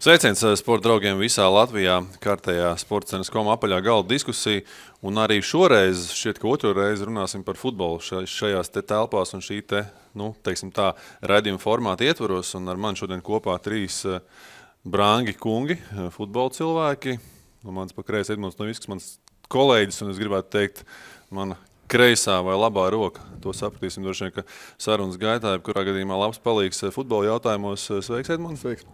Sveiciens sporta draugiem visā Latvijā, kārtējā sportcenas.com apaļā galda diskusija. Un arī šoreiz, šķiet, ka otro reizi runāsim par futbolu šajās te telpās un šī te, teiksim tā, raidījuma formāta ietvaros. Un ar mani šodien kopā trīs brangi kungi, futbola cilvēki. Mans pa kreisi Edmunds Novisks, mans kolēģis, un es gribētu teikt, mana kreisā vai labā roka. To sapratīsim droši vien, ka sarunas gaitā, kurā gadījumā labs palīgs futbola jautājumos. Sveiks, Edmunds. Sveiks.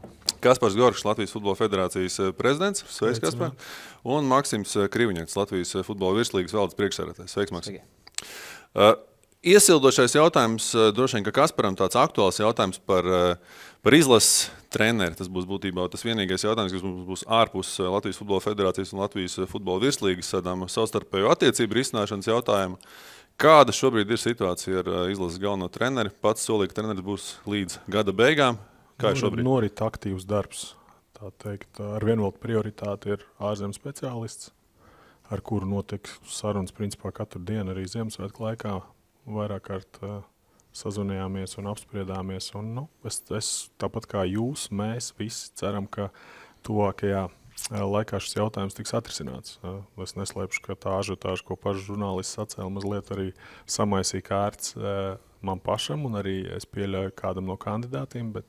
Kaspars Gorkšs, Latvijas futbola federācijas prezidents. Sveiks, Kaspar. Un Maksims Kriviņaks, Latvijas futbola virslīgas valdes priekšsēdētājs. Sveiks, Maksim. Iesildošais jautājums, droši vien, ka Kasparam tāds aktuāls jautājums par izlases treneri. Tas būs būtībā tas vienīgais jautājums, kas mums būs ārpus Latvijas futbola federācijas un Latvijas futbola virslīgas sadām savstarpējo attiecību risināšanas jautājumu. Kāda šobrīd ir situācija ar izlases galveno treneri? Pats solīja, ka treneris būs līdz gada beigām. Kā ir šobrīd? Norit aktīvs darbs. Tā teikt, ar vienu vēl prioritāti ir ārzemju speciālists, ar kuru notiek sarunas principā katru dienu arī Ziemassvētku laikā. Vairāk kārt sazvanījāmies un apspriedāmies. Un, es tāpat kā jūs, mēs visi ceram, ka tuvākajā laikā šis jautājums tiks atrisināts. Es neslēpšu, ka tā ažiotāža, ko paši žurnālisti sacēla, mazliet arī samaisīja kārts man pašam, un arī es pieļauju kādam no kandidātiem, bet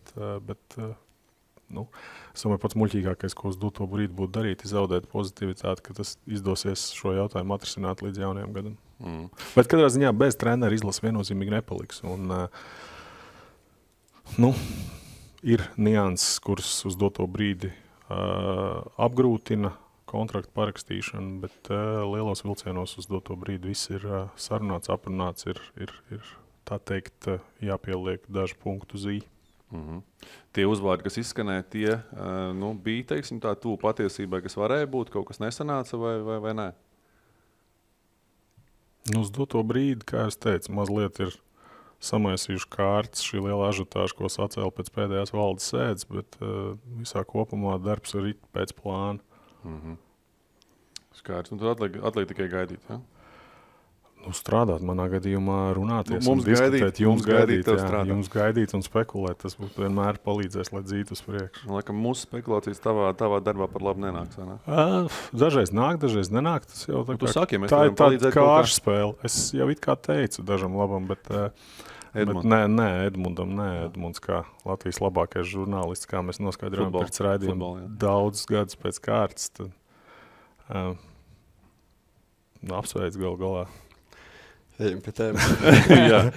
es domāju, pats muļķīgākais, ko uz doto brīdi būtu darīt, ir zaudēt pozitivitāti, ka tas izdosies šo jautājumu atrisināt līdz jaunajam gadam. Bet katrā ziņā bez trenera izlases viennozīmīgi nepaliks. Un, ir nianses, kuras uz doto brīdi apgrūtina kontraktu parakstīšanu, bet lielos vilcienos uz doto brīdi viss ir sarunāts, aprunāts, ir tā teikt, jāpieliek daži punktu uz i. Tie uzvārdi, kas izskanēja, tie bija, teiksim, tā tuvu patiesībai, kas varēja būt, kaut kas nesanāca vai nē? Uz doto brīdi, kā es teicu, mazliet ir samaisījuši kārtas šī liela ažiotāža, ko sacēla pēc pēdējās valdes sēdes, bet visā kopumā darbs ir pēc plāna. Skaidrs. Un tad atliek tikai gaidīt, ja? Strādāt manā gadījumā, runāties mums un diskutēt, jums gaidīt un spekulēt. Tas vienmēr palīdzēs, lai dzītu uz priekšu. Laikam mūsu spekulācijas tavā darbā par labu nenāks, vai ne? Dažreiz nāk, dažreiz nenāk. Tas jau tu saki, ja mēs tā varam palīdzēt ir kāršu spēle. Es jau it kā teicu dažam labam, bet Edmunds kā Latvijas labākais žurnālists, kā mēs noskaidrojam pēc raidījuma daudzus gadus pēc kārtas, tad apsveic galā. Ejam pie tēmas. Jā,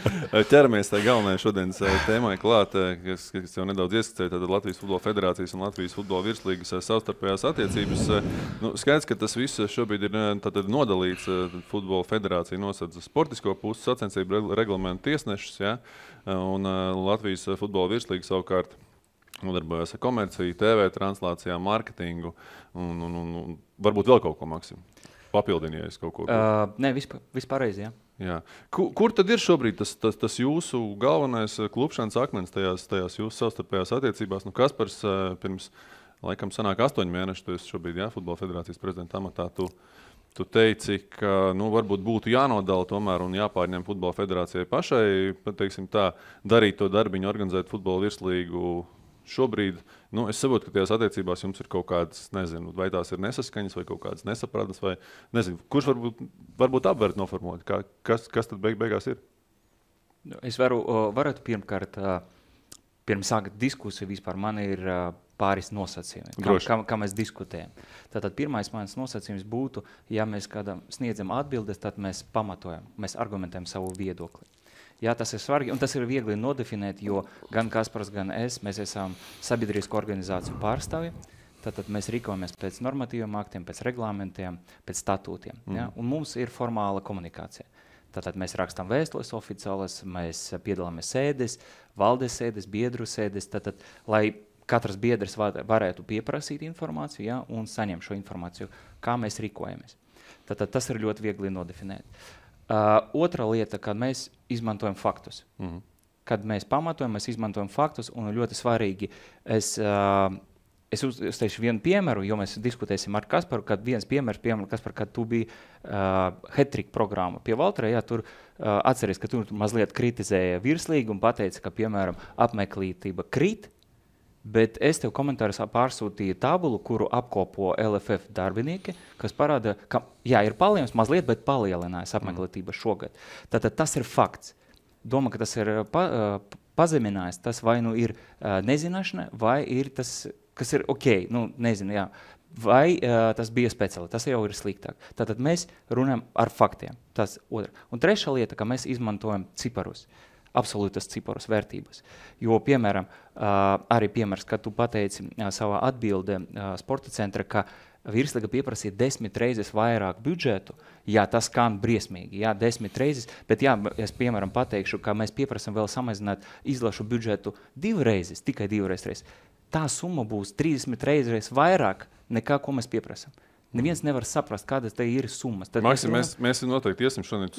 ķeramies tā galvenajai šodienas tēmai klāt, kas jau nedaudz ieskicēja, tad Latvijas futbola federācijas un Latvijas futbola virslīgas savstarpējās attiecības. Skaidrs, ka tas viss šobrīd ir nodalīts. Futbola federācija nosedz sportisko pusi, sacensību reglamentu tiesnešus, ja? Un Latvijas futbola virslīga savukārt nodarbojas ar komerciju, TV translācijām, marketingu un varbūt vēl kaut ko, Maksim. Papildinies kaut ko. Nē, vispārreiz, jā. Jā. Kur tad ir šobrīd tas jūsu galvenais klupšanas akmens tajās jūsu savstarpējās attiecībās? Kaspars pirms, laikam, sanāk 8 mēneši, tu esi šobrīd, futbola federācijas prezidenta amatā. Tu teici, ka, varbūt būtu jānodala tomēr un jāpārņem futbola federācijai pašai, teiksim tā, darīt to darbiņu, organizēt futbola virslīgu. Šobrīd, es saprotu, ka tajās attiecībās jums ir kaut kādas, nezinu, vai tās ir nesaskaņas vai kaut kādas nesapratas, vai nezinu, kurš varbūt apvērt noformulēt, kas tad beigās ir? Es varētu pirmkārt, pirms sākt diskusiju vispār, man ir pāris nosacījumi, kā mēs diskutējam. Tātad pirmais mans nosacījums būtu, ja mēs kādam sniedzam atbildes, tad mēs pamatojam, mēs argumentējam savu viedokli. Jā, tas ir svarīgi, un tas ir viegli nodefinēt, jo gan Kaspars, gan mēs esam sabiedrisku organizāciju pārstāvi, tātad mēs rīkojamies pēc normatīviem aktiem, pēc reglamentiem, pēc statūtiem. Ja? Un mums ir formāla komunikācija. Tātad mēs rakstām vēstules oficiālas, mēs piedalāmies sēdes, valdes sēdes, biedru sēdes, tātad, lai katrs biedrs varētu pieprasīt informāciju, ja? Un saņemt šo informāciju, kā mēs rīkojamies. Tātad tas ir ļoti viegli nodefinēt. Otra lieta, kad mēs izmantojam faktus. Kad mēs pamatojam, mēs izmantojam faktus, un ļoti svarīgi, es teikšu vienu piemēru, jo mēs diskutēsim ar Kasparu, kad viens piemērs, Kaspar, kad tu biji hat-trick programma pie Valtrē, jā, tur atceries, ka tur mazliet kritizēja virslīgu un pateica, ka, piemēram, apmeklētība krīt, Bet es tev komentāros pārsūtīju tabulu, kuru apkopo LFF darbinieki, kas parāda, ka ir palielinājums mazliet, bet palielinājās apmeklētība šogad. Tātad tas ir fakts. Domā, ka tas ir pazeminājis, tas vai nu ir nezināšana, vai ir tas, kas ir ok, nezinu, jā. Vai tas bija speciāli, tas jau ir sliktāk. Tātad mēs runājam ar faktiem. Tas otra. Un trešā lieta, ka mēs izmantojam ciparus. Absolūtas ciparas vērtības. Jo, piemēram, arī piemērs, kad tu pateici savā atbildē sporta centra, ka Virslīga pieprasīja 10 reizes vairāk budžetu, tas skan briesmīgi, 10 reizes, bet es, piemēram, pateikšu, ka mēs pieprasam vēl samazināt izlašu budžetu 2 reizes, tikai 2 reizes. Tā summa būs 30 reizes vairāk nekā, ko mēs pieprasam. Neviens nevar saprast, kādas te ir summas. Maksim, mēs noteikti iesim šodien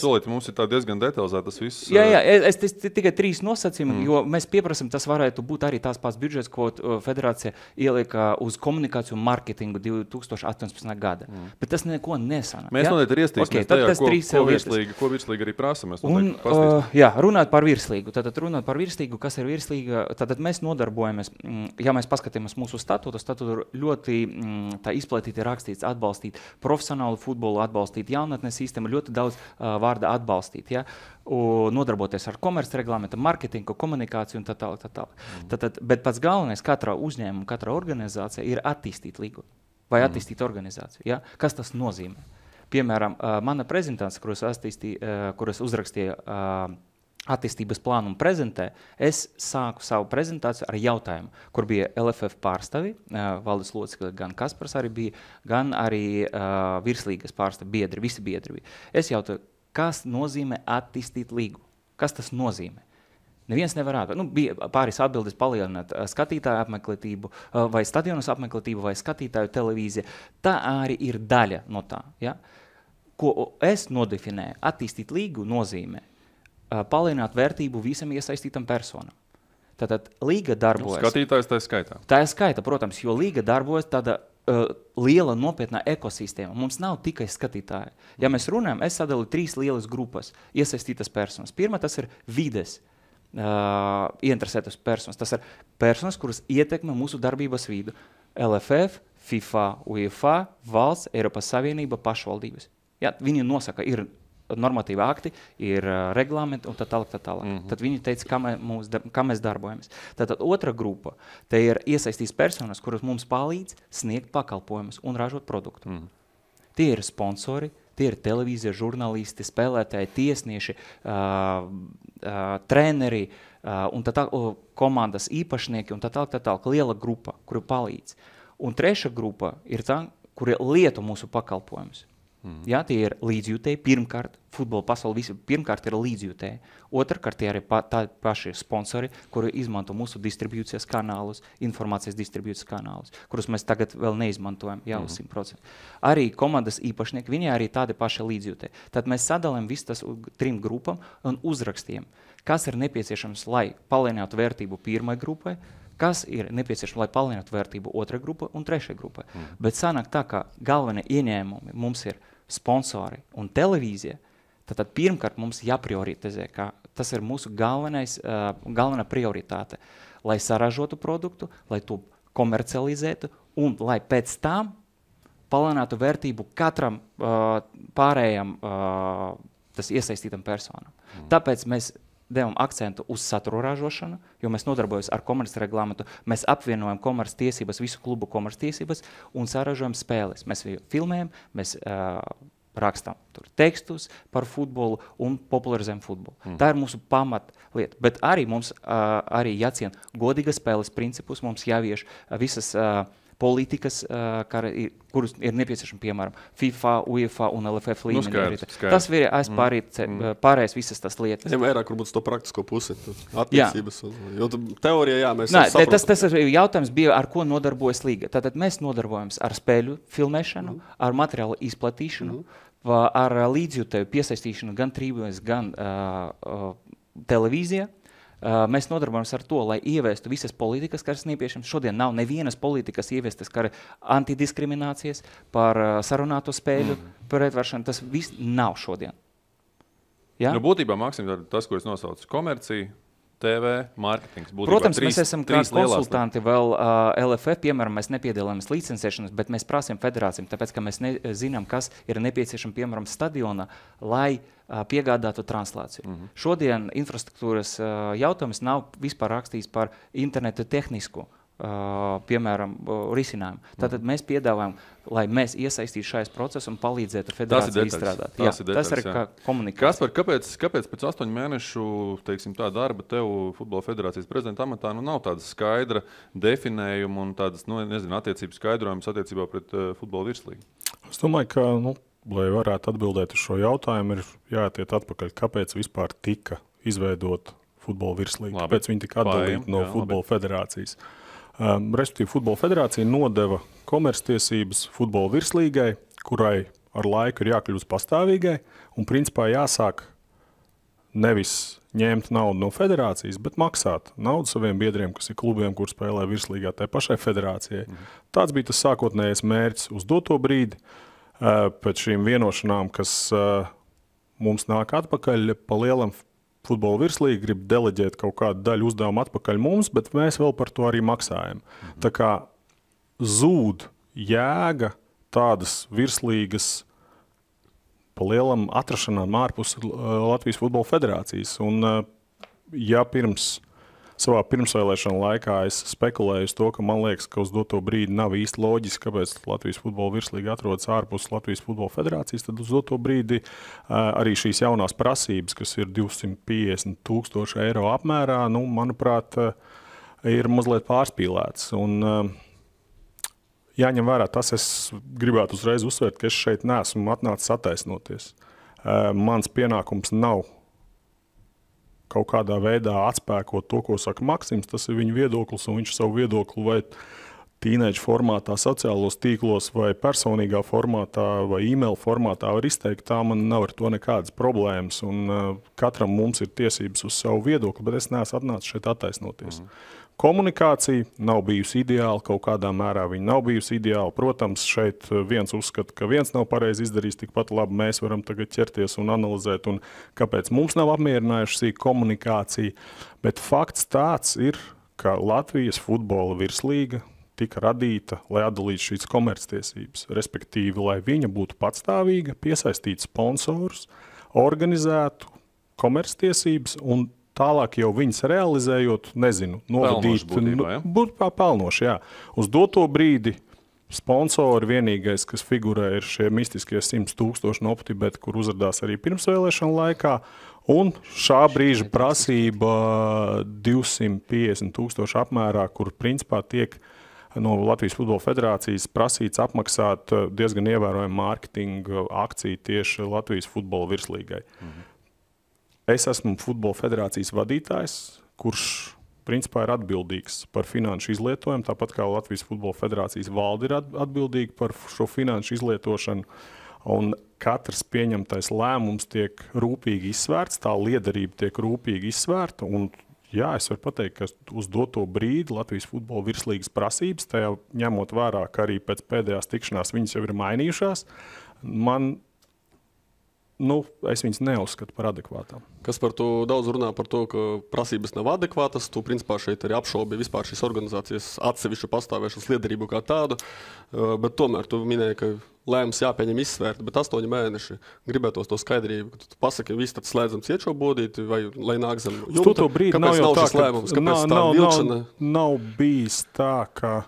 solīt, mums ir tā diezgan detalizēti tas viss. Es tikai 3 nosacījumi, jo mēs pieprasam, tas varētu būt arī tās pats budžets, ko federācija ielika uz komunikāciju un marketingu 2018. gada. Bet tas neko nesanāk. Mēs noteikti ir iestīsimies tajā, ko Virslīga arī prasa. Runāt par Virslīgu. Tātad runāt par Virslīgu, kas ir Virslīga, tātad mēs nodarbojamies, mēs paskatāmies mūsu statūtu ļoti tā izplatīti rakstīts atbalstīt profesionālu futbolu, atbalstīt jaunatnes sistēmu, ļoti daudz vārda atbalstīt, nodarboties ar komerces reglamentu, marketingu, komunikāciju un tā tālāk. Bet pats galvenais katrā uzņēmuma, katrā organizācija ir attīstīt līgu vai attīstīt organizāciju. Ja? Kas tas nozīmē? Piemēram, mana prezentācija, kuras uzrakstīja attīstības plānu un prezentē, es sāku savu prezentāciju ar jautājumu, kur bija LFF pārstāvi, valdes locekļi, gan Kaspars arī bija, gan arī Virslīgas pārstāvi, visi biedri bija. Es jautāju, kas nozīmē attīstīt līgu? Kas tas nozīmē? Neviens nevar atbildēt. Bija pāris atbildes palielināt skatītāju apmeklētību, vai stadionas apmeklētību, vai skatītāju televīzija. Tā arī ir daļa no tā. Ja? Ko es nodefinēju, attīstīt līgu nozīmē palielināt vērtību visam iesaistītam personam. Tātad līga darbojas. Skatītājs tā skaitā. Tā ir skaita, protams, jo līga darbojas tāda liela nopietnā ekosistēma. Mums nav tikai skatītāji. Ja mēs runājam, es sadalu 3 lielas grupas iesaistītas personas. Pirmā tas ir vides ieinteresētas personas. Tas ir personas, kuras ietekmē mūsu darbības vidu. LFF, FIFA, UEFA, valsts, Eiropas Savienība, pašvaldības. Viņi nosaka, ir normatīvi akti, ir reglamenti un tā tālāk. Tad viņi teica, kā mēs darbojamies. Tātad otra grupa, te ir iesaistīs personas, kuras mums palīdz sniegt pakalpojumus un ražot produktu. Tie ir sponsori, tie ir televīzija, žurnālisti, spēlētāji, tiesnieši, treneri un komandas īpašnieki un tā tālāk. Liela grupa, kuru palīdz. Un treša grupa ir tā, kuri lieto mūsu pakalpojumus. Tie ir līdzjūtēji, pirmkārt, futbola pasauli visi pirmkārt ir līdzjūtēji. Otrkārt, tie arī tādi paši sponsori, kuri izmanto mūsu distribūcijas kanālus, informācijas distribūcijas kanālus, kurus mēs tagad vēl neizmantojam, uz 100%. Arī komandas īpašnieki, viņi arī tādi paši līdzjūtēji. Tad mēs sadalām visu tas 3 grupām un uzrakstiem, kas ir nepieciešams, lai palielinātu vērtību pirmai grupai, kas ir nepieciešams, lai palielinātu vērtību otrai grupai un trešai grupai. Bet sanāk tā, ka galvenie ieņēmumi mums ir sponsori un televīzija, tad pirmkārt mums jāprioritizē, ka tas ir mūsu galvenā prioritāte, lai saražotu produktu, lai to komercializētu un lai pēc tam palielinātu vērtību katram pārējam tas iesaistītam personam. Tāpēc mēs devam akcentu uz satura ražošanu, jo mēs nodarbojamies ar komerces reglamentu, mēs apvienojam komerces tiesības, visu klubu komerces tiesības un saražojam spēles. Mēs filmējam, mēs rakstām tur tekstus par futbolu un popularizējam futbolu. Tā ir mūsu pamatlieta, bet arī mums arī jāciena godīgas spēles principus, mums jāvieš visas politikas, kurus ir nepieciešami, piemēram, FIFA, UEFA un LFF līmenī. Tas ir pārējais visas tas lietas. Vairāk varbūt to praktisko pusi, attiecības. Jo teorijā, mēs tas jautājums bija, ar ko nodarbojas līga. Tātad mēs nodarbojamies ar spēļu filmēšanu, ar materiālu izplatīšanu, ar līdzjūtēju piesaistīšanu gan tribūnēs, gan televīzijā. Mēs nodarbojamies ar to, lai ieviestu visas politikas, kas ir nepieciešams. Šodien nav nevienas politikas ieviestas, kā antidiskriminācijas, par sarunāto spēļu pretvaršanu. Tas viss nav šodien. Būtībā, Maksim, tas, ko es nosaucu, komercija, TV, mārketings. Protams, mēs esam kā konsultanti vēl LFF, piemēram, mēs nepiedalāmies licencēšanas, bet mēs prasām federācijām, tāpēc, ka mēs zinām, kas ir nepieciešams, piemēram, stadionā, lai piegādātu translāciju. Šodien infrastruktūras jautājums nav vispār rakstīts par internetu tehnisku, piemēram, risinājumu. Tātad mēs piedāvājam, lai mēs iesaistītu šajās procesu un palīdzētu federācijai izstrādāt. Tas ir kā komunikācija. Kaspar, kāpēc pēc 8 mēnešu, teiksim, tā darba tev Futbola federācijas prezidenta amatā nav tāda skaidra definējuma un tādas, attiecības skaidrojums attiecībā pret futbola virslīgu? Es domāju, ka, lai varētu atbildēt uz šo jautājumu, ir jātiet atpakaļ, kāpēc vispār tika izveidot futbola virslīgu, kāpēc viņi tika atdalīti no Futbola federācijas. Respektīvi, Futbola federācija nodeva komerctiesības futbola virslīgai, kurai ar laiku ir jākļūst pastāvīgai un principā jāsāk nevis ņemt naudu no federācijas, bet maksāt naudu saviem biedriem, kas ir klubiem, kur spēlē virslīgā tai pašai federācijai. Tāds bija tas sākotnējais mērķis uz doto brīdi. Pēc šīm vienošanām, kas mums nāk atpakaļ pa lielam futbola virslīga grib deleģēt kaut kādu daļu uzdevumu atpakaļ mums, bet mēs vēl par to arī maksājam. Tā kā zūd jēga tādas virslīgas pa lielam atrašanām ārpus Latvijas Futbola federācijas. Un ja savā pirmsvēlēšana laikā es spekulēju uz to, ka man liekas, ka uz doto brīdi nav īsti loģiski, kāpēc Latvijas Futbola virslīga atrodas ārpus Latvijas Futbola federācijas, tad uz doto brīdi arī šīs jaunās prasības, kas ir 250,000 eiro apmērā, manuprāt, ir mazliet pārspīlēts. Un jāņem vērā tas, es gribētu uzreiz uzsvērt, ka es šeit neesmu atnācis attaisnoties. Mans pienākums nav kaut kādā veidā atspēkot to, ko saka Maksims, tas ir viņa viedoklis, un viņš savu viedokli vai tīneģu formātā, sociālos tīklos, vai personīgā formātā, vai e-mail formātā var izteikt. Tā man nav ar to nekādas problēmas, un katram mums ir tiesības uz savu viedokli, bet es neesmu atnācis šeit attaisnoties. Komunikācija nav bijusi ideāla, kaut kādā mērā viņa nav bijusi ideāla. Protams, šeit viens uzskata, ka viens nav pareizi izdarījis, tikpat labi mēs varam tagad ķerties un analizēt, un kāpēc mums nav apmierinājuši šī komunikācija. Bet fakts tāds ir, ka Latvijas futbola virslīga tika radīta, lai atdalītu šīs komerctiesības, respektīvi, lai viņa būtu patstāvīga, piesaistītu sponsorus, organizētu komerctiesības un tālāk jau viņas realizējot, novadīt. Būtu pelnoši, jā. Uz doto brīdi sponsori vienīgais, kas figurē, ir šie mistiskie 100,000 no OptiBet, kur uzradās arī pirmsvēlēšana laikā, un šā brīža prasība 250,000 apmērā, kur principā tiek no Latvijas Futbola federācijas prasīts apmaksāt diezgan ievērojumu mārketinga akciju tieši Latvijas futbola virslīgai. Es esmu Futbola federācijas vadītājs, kurš principā ir atbildīgs par finanšu izlietojumu, tāpat kā Latvijas Futbola federācijas valde ir atbildīga par šo finanšu izlietošanu. Un katrs pieņemtais lēmums tiek rūpīgi izsvērts, tā liederība tiek rūpīgi izsvērta. Un, jā, es varu pateikt, ka uz doto brīdi Latvijas Futbola virslīgas prasības, tajā ņemot vērā, ka arī pēc pēdējās tikšanās viņas jau ir mainījušās, es viņas neuzskatu par adekvātām. Kas par to daudz runā par to, ka prasības nav adekvātas, tu principā šeit arī apšaubi vispār šīs organizācijas atsevišķu pastāvēšanas liederību kā tādu, bet tomēr tu minēji, ka lēmums jāpieņem izsvērt, bet 8 mēneši gribētos to skaidrību, ka tu pasaki, viss tad slēdzam ciet šo bodīti, vai lai nāk zem jumta, kāpēc nav šis lēmums, kāpēc tā vilkšana? Nav bijis tā, ka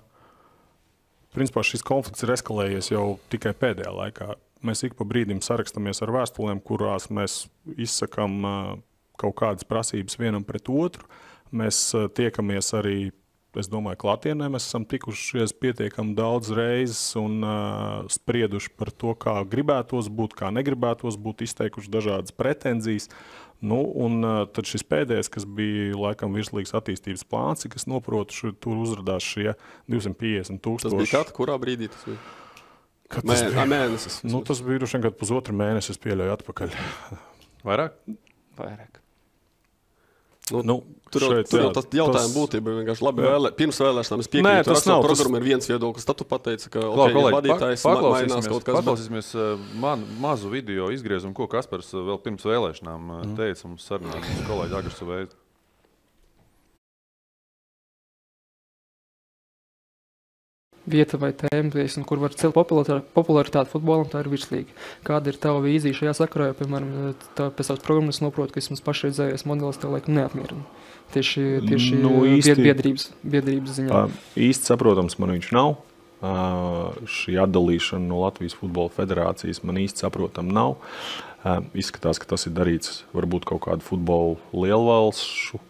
principā šis konflikts ir eskalējies jau tikai pēdējā laikā. Mēs ik pa brīdim sarakstamies ar vēstulēm, kurās mēs izsakam kaut kādas prasības vienam pret otru. Mēs tiekamies arī, es domāju, klātienē. Mēs esam tikušies pietiekami daudz reizes un sprieduši par to, kā gribētos būt, kā negribētos būt, izteikuši dažādas pretenzijas. Un tad šis pēdējais, kas bija laikam virslīgas attīstības plāns, kas noprotu, tur uzradās šie 250,000. Tas bija kad, kurā brīdī tas bija? Mēnesis. Tas bija droši vien, kad pusotru mēnesi es pieļauju atpakaļ. Vairāk? Vairāk. Tur jau tas jautājums būtība vienkārši labi pirms vēlēšanām es piekrītu. Programma ir viens viedoklis. Tad tu pateici, ka vadītājs mainās kaut kas. Paklausīsimies mazu video izgriezumu, ko Kaspars vēl pirms vēlēšanām teica mums sarunā. Kolēģi Agarsu veidu. vieta vai tēma, kur var celt popularitāti futbolam, tā ir virslīga. Kāda ir tava vīzija šajā sakarā? Jo, piemēram, pēc savas programmas noprotu, ka vismaz pašreizējais modelis tev laikam neapmierina. Tieši biedrības ziņā. Īsti saprotams, man viņš nav. Šī atdalīšana no Latvijas futbola federācijas man īsti saprotam nav. Izskatās, ka tas ir darīts varbūt kaut kādu futbolu lielvalstu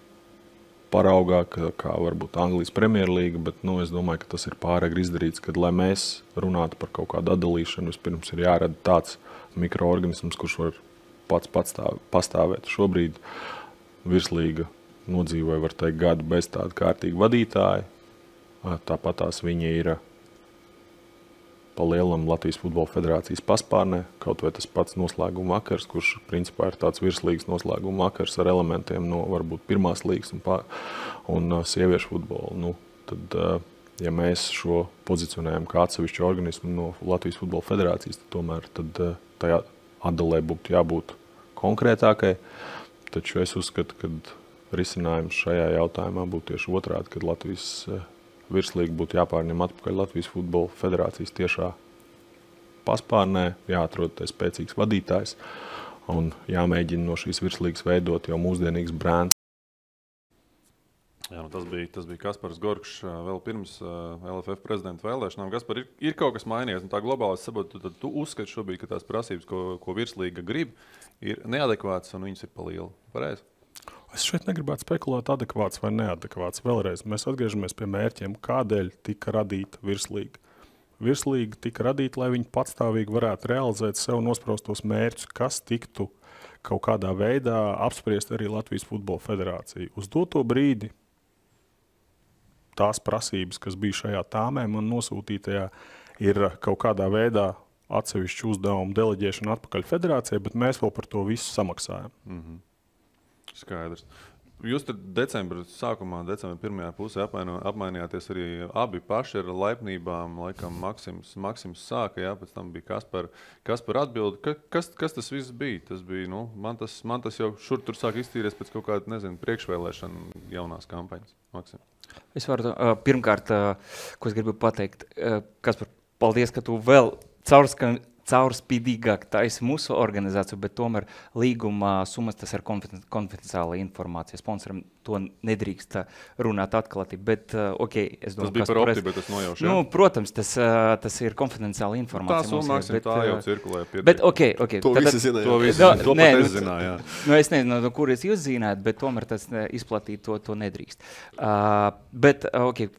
paraugā, kā varbūt Anglijas Premjerlīga, bet es domāju, ka tas ir pāragri izdarīts, kad, lai mēs runātu par kaut kādu atdalīšanu, vispirms ir jārada tāds mikroorganisms, kurš var pats pastāvēt. Šobrīd virslīga nodzīvoja, var teikt, gadu bez tāda kārtīga vadītāja. Tāpat tās viņi ir pa lielam Latvijas futbola federācijas paspārnē, kaut vai tas pats noslēguma vakars, kurš principā ir tāds virslīgas noslēguma vakars ar elementiem no varbūt pirmās līgas un sieviešu futbolu. Tad, ja mēs šo pozicionējam kā atsevišķu organismu no Latvijas futbola federācijas, tad tomēr tajā atdalē būtu jābūt konkrētākai. Taču es uzskatu, ka risinājums šajā jautājumā būtu tieši otrādi, kad Latvijas virslīga būtu jāpārņem atpakaļ Latvijas futbola federācijas tiešā paspārnē, jāatrod spēcīgs vadītājs un jāmēģina no šīs virslīgas veidot jau mūsdienīgs brands. Jā, tas bija Kaspars Gorkšs vēl pirms LFF prezidenta vēlēšanām. Kaspar, ir kaut kas mainījies, un tā globāli saprotu, tad tu uzskati šobrīd, ka tās prasības, ko virslīga grib, ir neadekvātas un viņas ir pa lielu. Pareizi? Es šeit negribētu spekulēt adekvāts vai neadekvāts. Vēlreiz mēs atgriežamies pie mērķiem, kādēļ tika radīta virslīga. Virslīga tika radīta, lai viņi patstāvīgi varētu realizēt sev nospraustos mērķus, kas tiktu kaut kādā veidā apspriest arī Latvijas futbola federācija. Uz doto brīdi tās prasības, kas bija šajā tāmē man nosūtītajā, ir kaut kādā veidā atsevišķu uzdevumu deleģēšana atpakaļ federācijai, bet mēs vēl par to visu samaksājam. Mhm. Skaidrs. Jūs tad decembra pirmajā pusē apmainījāties arī abi paši ar laipnībām. Laikam Maksims sāka, jā, pēc tam bija Kaspar atbildi. Kas tas viss bija? Tas bija, man tas jau šur tur sāk iztīries pēc kaut kāda, priekšvēlēšana jaunās kampaņas. Maksim. Es varu pirmkārt, ko es gribu pateikt, Kaspar, paldies, ka tu vēl caurspīdīgāk taisi mūsu organizāciju, bet tomēr līguma summas tas ir konfidenciāla informācija. Sponsoram to nedrīkst runāt atklāti, bet es domāju, tas bija par opti, bet tas nojauš, jā? Protams, tas ir konfidenciāla informācija. Tā summa, Maksim, tā jau cirkulē. Bet To visi zināja. To pat es zināju, jā. Es nezinu, no kuras jūs zināt, bet tomēr tas izplatīt to nedrīkst. Bet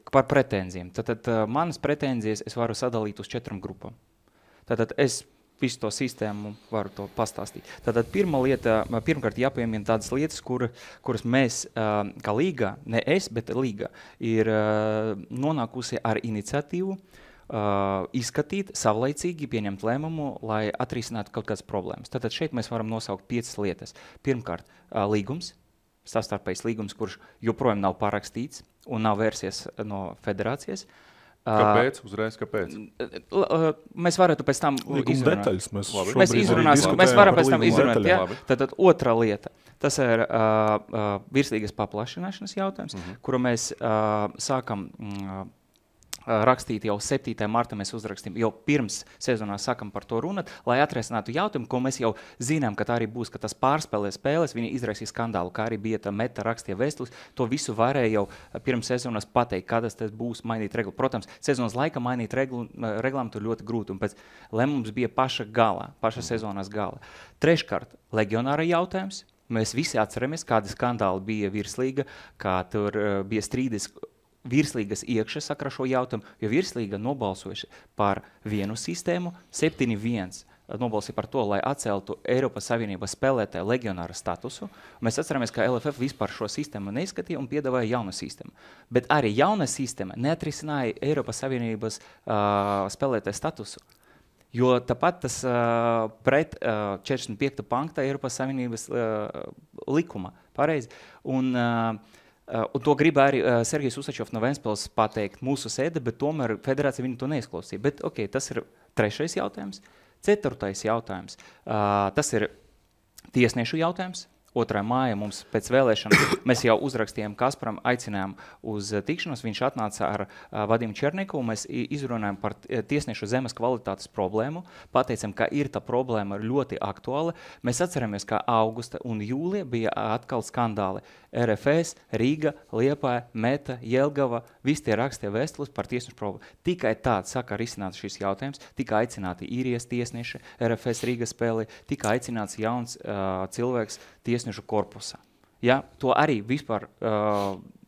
par pretenzijām. Tad manas pretenzijas es varu sadalīt uz 4 grupām. Tātad es visu to sistēmu varu to pastāstīt. Tātad pirmkārt jāpiemina tādas lietas, kuras mēs kā līga, ne es, bet līga, ir nonākusi ar iniciatīvu izskatīt, savlaicīgi pieņemt lēmumu, lai atrisinātu kaut kādas problēmas. Tātad šeit mēs varam nosaukt 5 lietas. Pirmkārt, līgums, savstarpējs līgums, kurš joprojām nav parakstīts un nav vērsies no federācijas. Kāpēc? Uzreiz kāpēc? Mēs varētu pēc tam izrunāt. Mēs varam pēc tam izrunāt. Ja? Tad otra lieta. Tas ir virslīgas paplašināšanas jautājums, kuru mēs sākam rakstīt jau 7. martā, mēs uzrakstījām, jau pirms sezonā sākam par to runāt, lai atrisinātu jautājumu, ko mēs jau zinām, ka tā arī būs, ka tas pārspēlē spēles, viņi izraisīja skandālu, kā arī bija tā meta rakstīja vēstules, to visu varēja jau pirms sezonas pateikt, kādas tas būs mainīt reglu. Protams, sezonas laika mainīt reglām tur ļoti grūti, un pēc lēmums bija paša sezonas gala. Treškārt, legionāra jautājums. Mēs visi atceramies, kādi skandāli bija virslīga, kā tur bija strīdis virslīgas iekšā sakra šo jautājumu, jo virslīga nobalsojuši par vienu sistēmu, 7-1 nobalsīja par to, lai atceltu Eiropas Savienības spēlētāju legionāra statusu. Mēs atceramies, ka LFF vispār šo sistēmu neizskatīja un piedāvāja jaunu sistēmu. Bet arī jauna sistēma neatrisināja Eiropas Savienības spēlētāju statusu. Jo tāpat tas pret 45. panta Eiropas Savienības likuma. Pareizi. Un to grib arī Sergejs Usačovs no Ventspils pateikt mūsu sēde, bet tomēr federācija viņu to neizklausīja. Bet tas ir 3. jautājums. 4. jautājums. Tas ir tiesniešu jautājums. 2. māja mums pēc vēlēšanām, mēs jau uzrakstījām Kasparam, aicinājām uz tikšanos, viņš atnāca ar Vadimu Černiku, un mēs izrunājām par tiesniešu zemes kvalitātes problēmu, pateicām, ka ir tā problēma ļoti aktuāla. Mēs atceramies, ka augusta un jūlija bija atkal skandāli. RFS, Rīga, Liepāja, Meta, Jelgava, visi tie rakstīja vēstules par tiesnešu problēmu. Tikai tāds saka risināt šis jautājums, tika aicināti īrijas tiesneši, RFS Rīga spēlē, tika aicināts jauns cilvēks tiesnešu korpusā. Ja? To arī vispār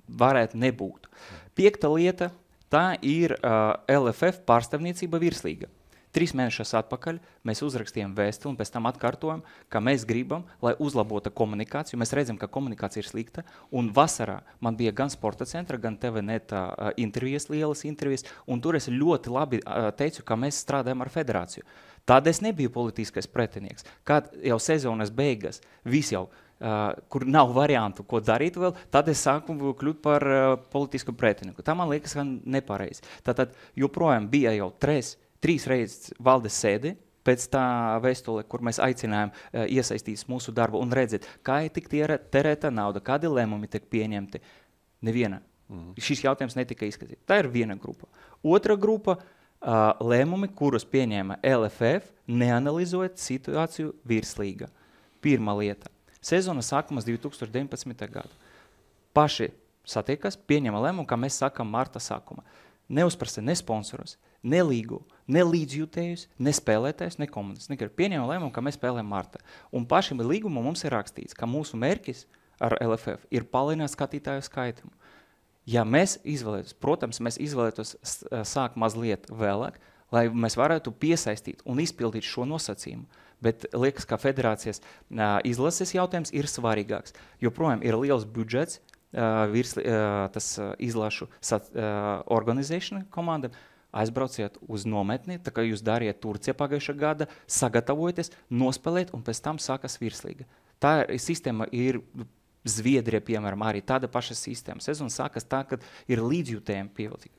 varētu nebūt. 5. lieta, tā ir LFF pārstāvniecība virslīga. 3 mēnešus atpakaļ mēs uzrakstījām vēstuli un pēc tam atkārtojam, ka mēs gribam, lai uzlabota komunikāciju. Mēs redzam, ka komunikācija ir slikta. Un vasarā man bija gan Sporta centra, gan TVNet intervijas, lielas intervijas. Un tur es ļoti labi teicu, ka mēs strādājam ar federāciju. Tad es nebiju politiskais pretinieks. Kad jau sezonas beigas, viss jau, kur nav variantu, ko darīt vēl, tad es sāku kļūt par politisku pretinieku. Tā man liekas, ka nepareizi. Tātad joprojām bija jau 3 reizes valdes sēdi pēc tā vēstule, kur mēs aicinājām iesaistīties mūsu darbu un redzēt, kā ir tik terēta nauda, kādi lēmumi tiek pieņemti. Neviena. Šis jautājums netika izskatīts. Tā ir viena grupa. Otra grupa lēmumi, kurus pieņēma LFF, neanalizojot situāciju virslīga. Pirmā lieta. Sezona sākumas 2019. gada. Paši satiekas, pieņēma lēmumu, kā mēs sākam marta sākuma. Neuzprasa ne sponsorus, ne līgu, ne līdzjūtējus, ne spēlētājus, ne komandas. Pieņēma lēmumu, ka mēs spēlējam marta. Un pašiem līgumu mums ir rakstīts, ka mūsu mērķis ar LFF ir palielināt skatītāju skaitumu. Ja mēs izvēlētos, protams, mēs izvēlētos sākt mazliet vēlāk, lai mēs varētu piesaistīt un izpildīt šo nosacījumu. Bet liekas, ka federācijas izlases jautājums ir svarīgāks. Joprojām ir liels budžets, tas izlašu organizēšana komandam, aizbrauciet uz nometni, tā kā jūs dariet Turcija pagājušā gada, sagatavojaties, nospēlēt un pēc tam sākas virslīga. Tā sistēma ir Zviedrija, piemēram, arī tāda paša sistēma. Sezona sākas tā, kad ir līdzjūtējumi pievilcīgi.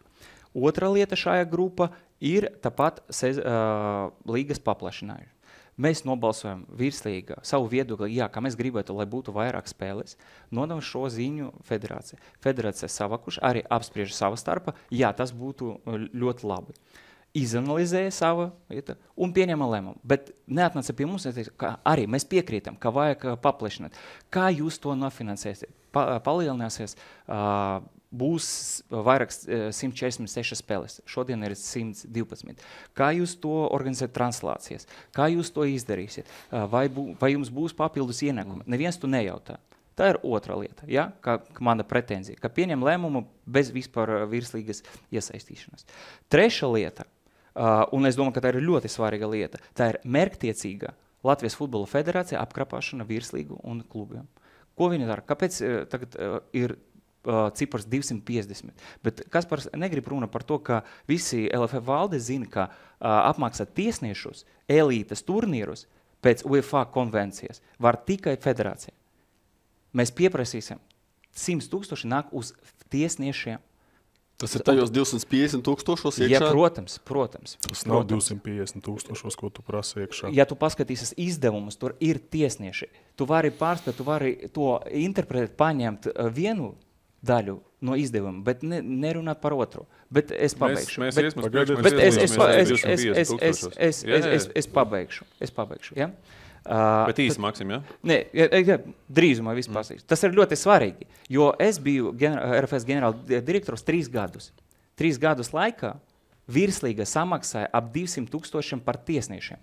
Otra lieta šajā grupa ir tāpat līgas paplašinājuši. Mēs nobalsojam virslīgā savu viedokli, jā, ka mēs gribētu, lai būtu vairāk spēles, nodam šo ziņu federācija. Federācija savakuši, arī apspriež sava starpa, jā, tas būtu ļoti labi. Izanalizēja savu un pieņēma lēmumu, bet neatnāca pie mums, ka arī mēs piekrītam, ka vajag paplašināt. Kā jūs to nofinansēsiet? Palielināsies, būs vairāk 146 spēles. Šodien ir 112. Kā jūs to organizēt translācijas? Kā jūs to izdarīsiet? Vai jums būs papildus ienākumi? Neviens to nejautā. Tā ir otra lieta, ja? Kā mana pretenzija, ka pieņem lēmumu bez vispār virslīgas iesaistīšanas. Trešā lieta, un es domāju, ka tā ir ļoti svarīga lieta, tā ir mērķtiecīga Latvijas futbola federācija apkrapāšana virslīgu un klubiem. Ko viņi dara? Kāpēc tagad ir cipars 250? Bet Kaspars negrib runa par to, ka visi LFF valde zina, ka apmaksāt tiesniešus, elītes turnīrus pēc UEFA konvencijas var tikai federācija. Mēs pieprasīsim 100 000 nāk uz tiesniešiem. Tas ir tajos 250 000 iekšā? Ja, protams. Tas nav 250 000, ko tu prasa iekšā. Ja tu paskatīsies izdevumus, tur ir tiesnieši. Tu vari pārspēt, tu vari to interpretēt, paņemt vienu daļu no izdevuma, bet nerunāt par otru. Bet es pabeigšu. Es pabeigšu. Ja? Bet īsi, Maksim, ja? Nē, drīzumā viss pasīšu. Tas ir ļoti svarīgi, jo es biju RFS ģenerāla direktors 3 gadus. 3 gadus laikā virslīga samaksāja ap 200 000 par tiesniešiem,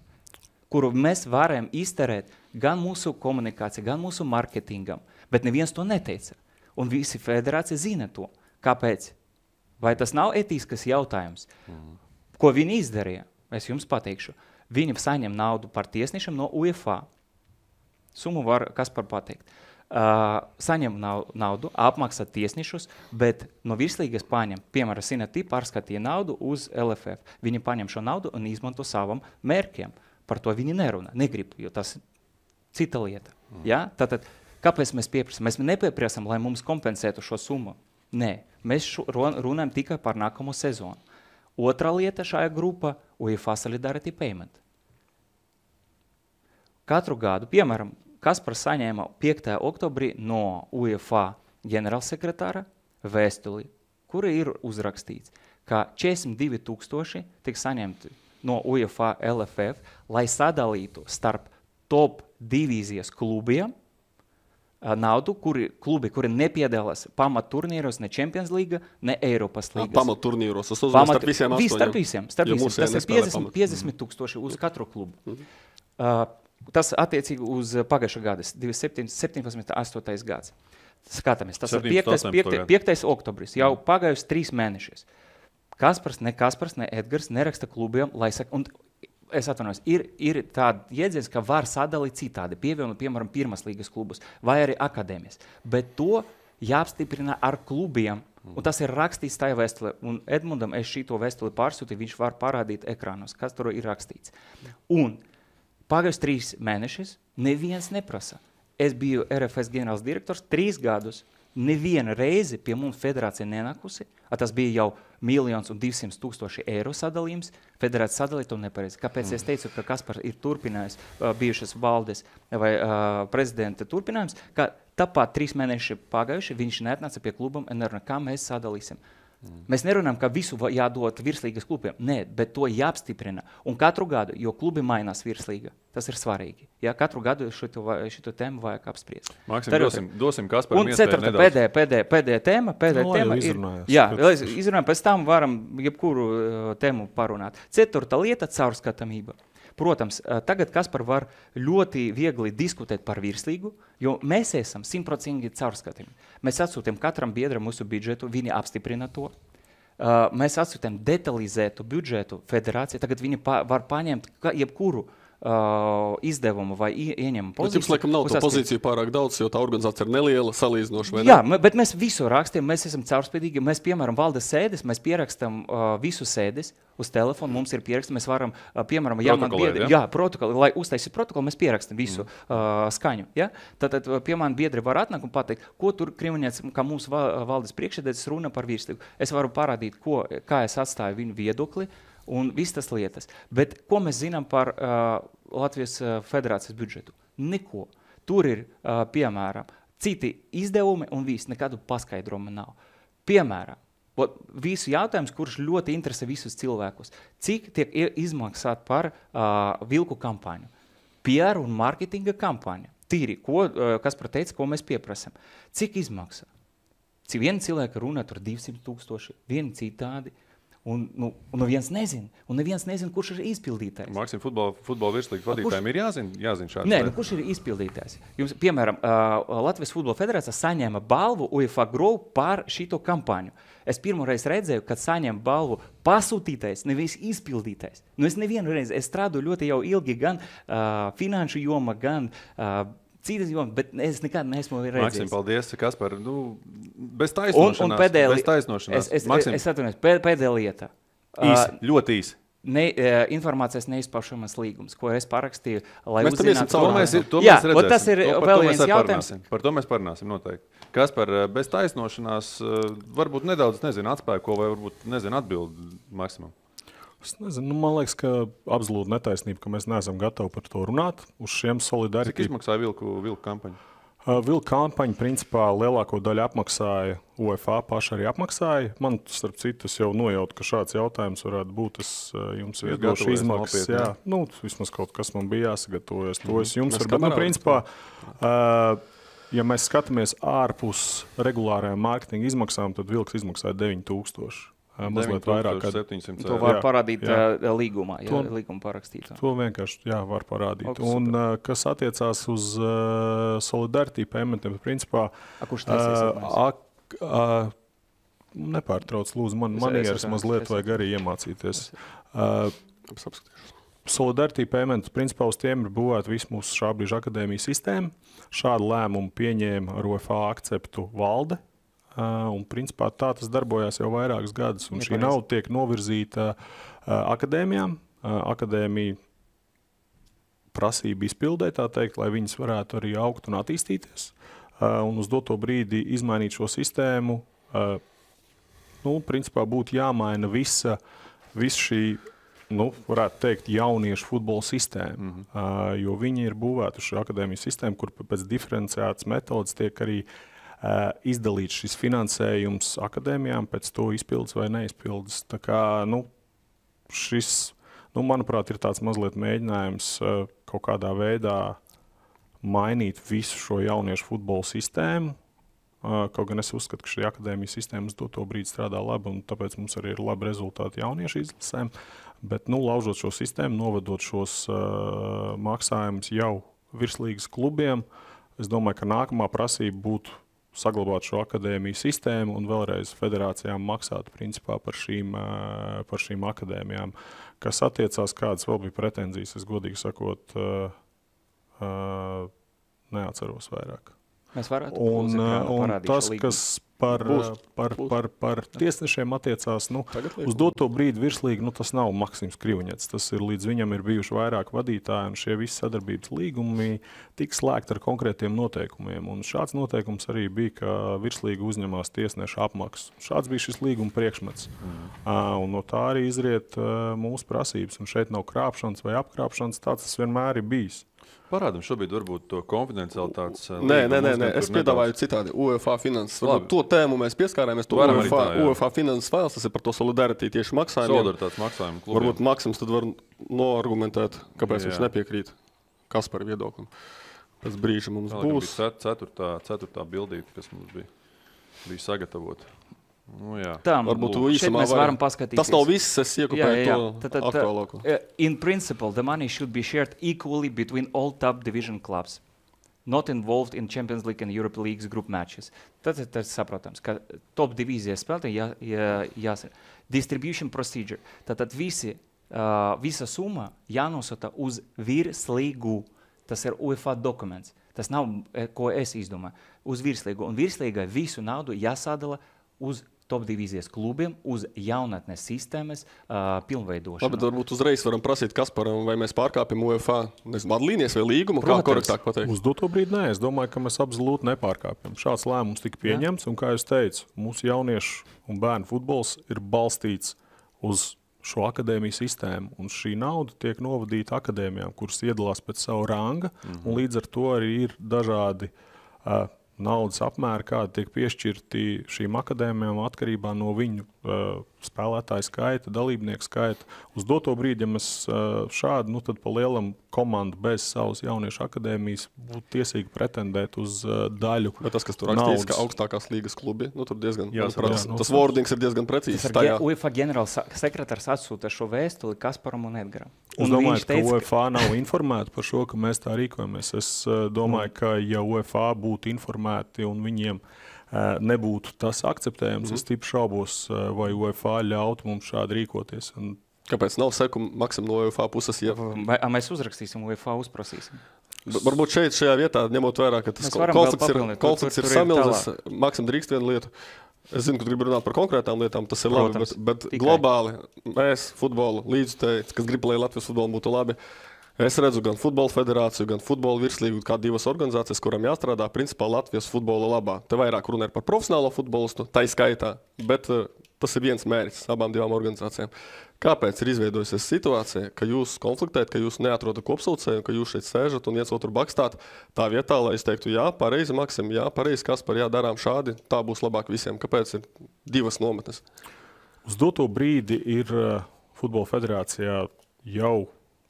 kuru mēs varējām izterēt gan mūsu komunikāciju, gan mūsu marketingam, bet neviens to neteica. Un visi federācija zina to. Kāpēc? Vai tas nav etiskas jautājums? Ko viņi izdarīja? Es jums pateikšu. Viņi saņem naudu par tiesniešiem no UEFA. Summu var Kaspar pateikt. Saņem naudu, apmaksā tiesniešus, bet no virslīgas paņem, piemēram, Sinatī pārskatīja naudu uz LFF. Viņi paņem šo naudu un izmanto savam mērķiem. Par to viņi nerunā, negrib, jo tas ir cita lieta. Ja? Tātad, kāpēc mēs pieprasam? Mēs nepieprasam, lai mums kompensētu šo summu. Nē, mēs runājam tikai par nākamo sezonu. Otra lieta šajā grupā – UEFA Solidarity Payment. Katru gadu, piemēram, Kaspars saņēma 5. oktobrī no UEFA ģenerālsekretāra vēstuli, kura ir uzrakstīts, ka 42,000 tiks saņemti no UEFA LFF, lai sadalītu starp top divīzijas klubiem naudu, klubi, kuri nepiedalās pamatturnīros, ne Champions Līga, ne Eiropas līgas. Pamatturnīros, tas uzvar starp visiem 8. Starp visiem. Tas ir 50,000 uz katru klubu. Tas attiecīgi uz pagājušā gada, 17. 8. gads. Skatāmies, tas ir 5. oktobris, jau pagājusi 3 mēnešus. Kaspars, ne Edgars neraksta klubiem, lai saka, un es atvainojos, ir tāda jēdziens, ka var sadalīt citādi, pievienot, piemēram, pirmās līgas klubus vai arī akadēmijas. Bet to jāapstiprina ar klubiem, un tas ir rakstīts tajā vēstulē. Un Edmundam es šito vēstuli pārsūtīju, viņš var parādīt ekrānos, kas tur ir rakstīts. Un pagājus 3 mēnešus neviens neprasa. Es biju RFS ģenerāls direktors 3 gadus. Neviena reize pie mums federācija nenākusi, tas bija jau 1,200,000 eiro sadalījums, federācija sadalīja to nepareizi. Kāpēc es teicu, ka Kaspars ir turpinājis bijušas valdes vai prezidenta turpinājums, ka tāpat 3 mēneši pagājuši, viņš neatnāca pie klubam un nerunā, kā mēs sadalīsim. Mēs nerunājam, ka visu jādod virslīgas klubiem. Nē, bet to jāapstiprina. Un katru gadu, jo klubi mainās virslīga, tas ir svarīgi. Ja, katru gadu šito tēmu vajag apspriest. Maksim, dosim Kasparam iespēju nedaudz. Un pēdējā tēma ir... Jā, izrunājam, pēc tam varam jebkuru tēmu parunāt. 4. lieta – caurskatāmība. Protams, tagad Kaspar var ļoti viegli diskutēt par virslīgu, jo mēs esam 100% caurskatījumi. Mēs atsūtām katram biedram mūsu budžetu, viņi apstiprina to. Mēs atsūtām detalizētu budžetu federācijai, tagad viņi var paņemt jebkuru izdevumu vai ieņemu pozīciju. Jums laikam nav to pozīciju pārāk daudz, jo tā organizācija ir neliela, salīdzinoši, vai ne? Jā, bet mēs visu rakstiem, mēs esam caurspēdīgi, mēs, piemēram, valdes sēdes, mēs pierakstam visu sēdes uz telefonu, mums ir pieraksti, mēs varam, piemēram, protokoli, lai uztaisīt protokolu, mēs pierakstam visu skaņu. Ja? Tad pie mani biedri var atnākt un pateikt, ko tur Krimaņets, kā mūsu valdes priekšsēdētājs runa par virslīgu. Es varu parādīt, kā es atstāju viņu viedokli, un viss tas lietas. Bet ko mēs zinām par Latvijas federācijas budžetu? Neko. Tur ir, piemēram, citi izdevumi un viss, nekādu paskaidrojumu nav. Piemēram, visu jautājums, kurš ļoti interesē visus cilvēkus. Cik tiek izmaksāt par vilku kampaņu? PR un marketinga kampaņa. Tīri, kas teica, ko mēs pieprasam. Cik izmaksā? Viena cilvēka runā tur 200,000, viena citādi. Un neviens nezina, kurš ir izpildītājs. Maksim, futbola virslīgas vadītājiem ir jāzina šāds. Nē, kurš ir izpildītājs? Jums, piemēram, Latvijas futbola federācija saņēma balvu UEFA Grow par šito kampaņu. Es pirmoreiz redzēju, kad saņem balvu pasūtītājs, nevis izpildītājs. Es nevienu reizi, es strādāju ļoti jau ilgi gan finanšu joma, gan citas jomas, bet es nekad neesmu redzējis. Maksim, paldies, Kaspar. Bez taisnošanās. Es atvainojos, pēdējā lieta. Ļoti īsi. Informācijas neizpaušamas līgums, ko es parakstīju, lai mēs uzzinātu. To mēs redzēsim. Tas ir vēl viens jautājums. Par to mēs parunāsim noteikti. Kaspar, bez taisnošanās varbūt nedaudz, atspēko vai varbūt, atbildi Maksimam. Es nezinu, man liekas, ka absolūti netaisnība, ka mēs neesam gatavi par to runāt uz šiem solidaritāti. Cik izmaksāja vilku kampaņu? Vilku kampaņu, principā, lielāko daļu apmaksāja UEFA, paši arī apmaksāja. Man, starp citu, jau nojautu, ka šāds jautājums varētu būt. Es jums viedošu izmaksas. Jā, vismaz kaut kas man bija jāsagatavojas. To es jums varu. Bet, principā, ja mēs skatāmies ārpus regulārajām mārketinga izmaksām, tad vilks izmaksāja 9,000. Mazliet vairāk. 700. To var parādīt līgumā, līguma parakstītā. To vienkārši var parādīt. Un kas attiecās uz solidarity paymentiem, principā... Kurš taisies? Nepārtrauc, lūdzu, man manieres mazliet vajag arī iemācīties. Solidarity payment, principā uz tiem ir būvēta visu mūsu šā brīža akadēmijas sistēma. Šādu lēmumu pieņēma ar UEFA akceptu valde. Un principā tā tas darbojās jau vairākus gadus. Un šī nauda tiek novirzīta akadēmijām. Akadēmija prasība izpildē, tā teikt, lai viņas varētu arī augt un attīstīties. Un uz doto brīdi izmainīt šo sistēmu, principā būtu jāmaina visa šī varētu teikt, jauniešu futbola sistēmu. Jo viņi ir būvēti uz šo akadēmiju sistēmu, kur pēc diferenciētas metodas tiek arī izdalīts šis finansējums akadēmijām pēc to izpildes vai neizpildes. Tā kā, šis, manuprāt, ir tāds mazliet mēģinājums kaut kādā veidā mainīt visu šo jauniešu futbola sistēmu. Kaut gan es uzskatu, ka šī akadēmijas sistēma uz to brīdi strādā labi, un tāpēc mums arī ir labi rezultāti jauniešu izlasēm. Bet, laužot šo sistēmu, novedot šos maksājumus jau virslīgas klubiem, es domāju, ka nākamā prasība būtu saglabāt šo akadēmiju sistēmu un vēlreiz federācijām maksāt principā par šīm akadēmijām. Kas attiecās, kādas vēl bija pretenzijas, es godīgi sakot, neatceros vairāk. Mēs varētu un tas, kas par tiesnešiem attiecās, uz doto brīdi virslīgi, tas nav Maksims Krivuņets. Tas ir līdz viņam ir bijuši vairāk vadītāji, un šie visi sadarbības līgumi tika slēgti ar konkrētiem noteikumiem. Un šāds noteikums arī bija, ka virslīga uzņemās tiesneša apmaksu. Šāds bija šis līguma priekšmets. Un no tā arī izriet mūsu prasības. Un šeit nav krāpšanas vai apkrāpšanas, tāds tas vienmēr ir bijis. Parādam šobrīd varbūt to konfidencialitātes. Nē, es piedāvāju citādi. UEFA finanses. To tēmu mēs pieskārāmies. UEFA finanses fails, tas ir par to solidaritāti tieši maksājumiem. Solidaritātes maksājumu klubiem. Varbūt Maksims tad var noargumentēt, kāpēc viņš nepiekrīt Kaspara viedoklim. Pēc brīža mums būs. Ceturtā bildīte, kas mums bija sagatavota. Tā, varbūt mēs varam paskatīties. Tas nav viss, es iekopēju to aktuālāko. In principle, the money should be shared equally between all top division clubs, not involved in Champions League and Europe Leagues group matches. Tas saprotams, ka top divīzijas spēlētāji jāsaka. Distribution procedure. Tātad visa summa jānosūta uz virslīgu. Tas ir UEFA dokuments. Tas nav, ko es izdomāju. Uz virslīgu. Un virslīgai visu naudu jāsadala uz top divīzijas klubiem, uz jaunatnes sistēmas pilnveidošanu. Labi, varbūt uzreiz varam prasīt Kasparam, vai mēs pārkāpjam UEFA vadlīnijas vai līgumu, kā korektāk pateikt? Uz doto brīdi nē, es domāju, ka mēs absolūti nepārkāpjam. Šāds lēmums tika pieņemts, un kā jūs teicu, mūsu jauniešu un bērnu futbols ir balstīts uz šo akadēmiju sistēmu, un šī nauda tiek novadīta akadēmijām, kuras iedalās pēc savu ranga, un līdz ar to arī ir dažādi naudas apmēri, kādi tiek piešķirti šīm akadēmijām atkarībā no viņu spēlētāju skaita, dalībnieku skaita. Uz doto brīdi, ja mēs šādi, tad pa lielam komandu bez savas jauniešu akadēmijas būtu tiesīgi pretendēt uz daļu naudas. Bet tas, kas tur rakstīts, ka augstākās līgas klubi, tur diezgan, tas wordings ir diezgan precīzs. UEFA ģenerāls sekretārs atsūta šo vēstuli Kasparam un Edgaram. Es domāju, ka UEFA nav informēta par šo, ka mēs tā rīkojamies. Es domāju, ka ja UEFA būtu informēti un viņiem nebūtu tas akceptējams, es stipri šaubos, vai UEFA ļautu mums šādi rīkoties. Kāpēc nav seku Maksim no UEFA puses? Ja? Mēs uzrakstīsim, UEFA uzprasīsim. Varbūt šajā vietā, ņemot vērā, ka tas konflikts ir samilzis, Maksim drīkst vienu lietu. Es zinu, ka tu gribi runāt par konkrētām lietām, tas ir labi, bet globāli mēs futbolu līdzutēji, kas grib, lai Latvijas futbolu būtu labi, es redzu gan futbola federāciju, gan futbola virslīgu, kā divas organizācijas, kurām jāstrādā principā Latvijas futbola labā. Te vairāk runa ir par profesionālo futbolistu, tai skaitā, bet tas ir viens mērķis abām divām organizācijām. Kāpēc ir izveidojusies situācija, ka jūs konfliktējat, ka jūs neatrodat kopsaucēju, ka jūs šeit sēžat un viens otru bakstāt tā vietā, lai es teiktu, jā, pareizi Maksim, jā, pareizi Kaspar, jā, darām šādi, tā būs labāk visiem. Kāpēc ir divas nometnes? Uz doto brīdi ir Futbola federācijā jau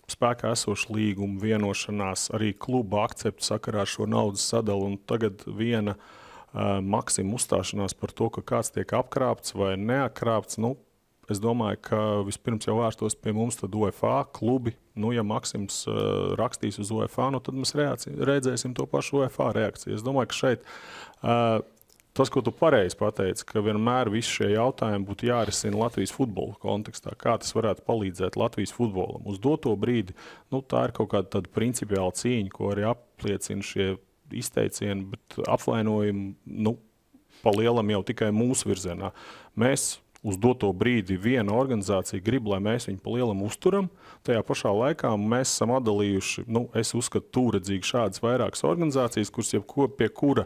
spēkā esoša līguma vienošanās, arī kluba akceptu sakarā ar šo naudas sadalu, un tagad viena Maksima uzstāšanās par to, ka kāds tiek apkrāpts vai neapkrāpts, es domāju, ka vispirms jau vērstos pie mums tad UEFA klubi. Ja Maksims rakstīs uz UEFA, tad mēs redzēsim to pašu UEFA reakciju. Es domāju, ka šeit tas, ko tu pareizi pateici, ka vienmēr visi šie jautājumi būtu jārisina Latvijas futbola kontekstā. Kā tas varētu palīdzēt Latvijas futbolam? Uz doto brīdi, tā ir kaut kāda tāda principiāla cīņa, ko arī apliecina šie izteicieni, bet apvainojumi, pa lielam jau tikai mūsu virzienā. Mēs uz doto brīdi viena organizācija grib, lai mēs viņu pa lielam uzturam. Tajā pašā laikā mēs esam atdalījuši, es uzskatu tūredzīgi šādas vairākas organizācijas, kuras pie kura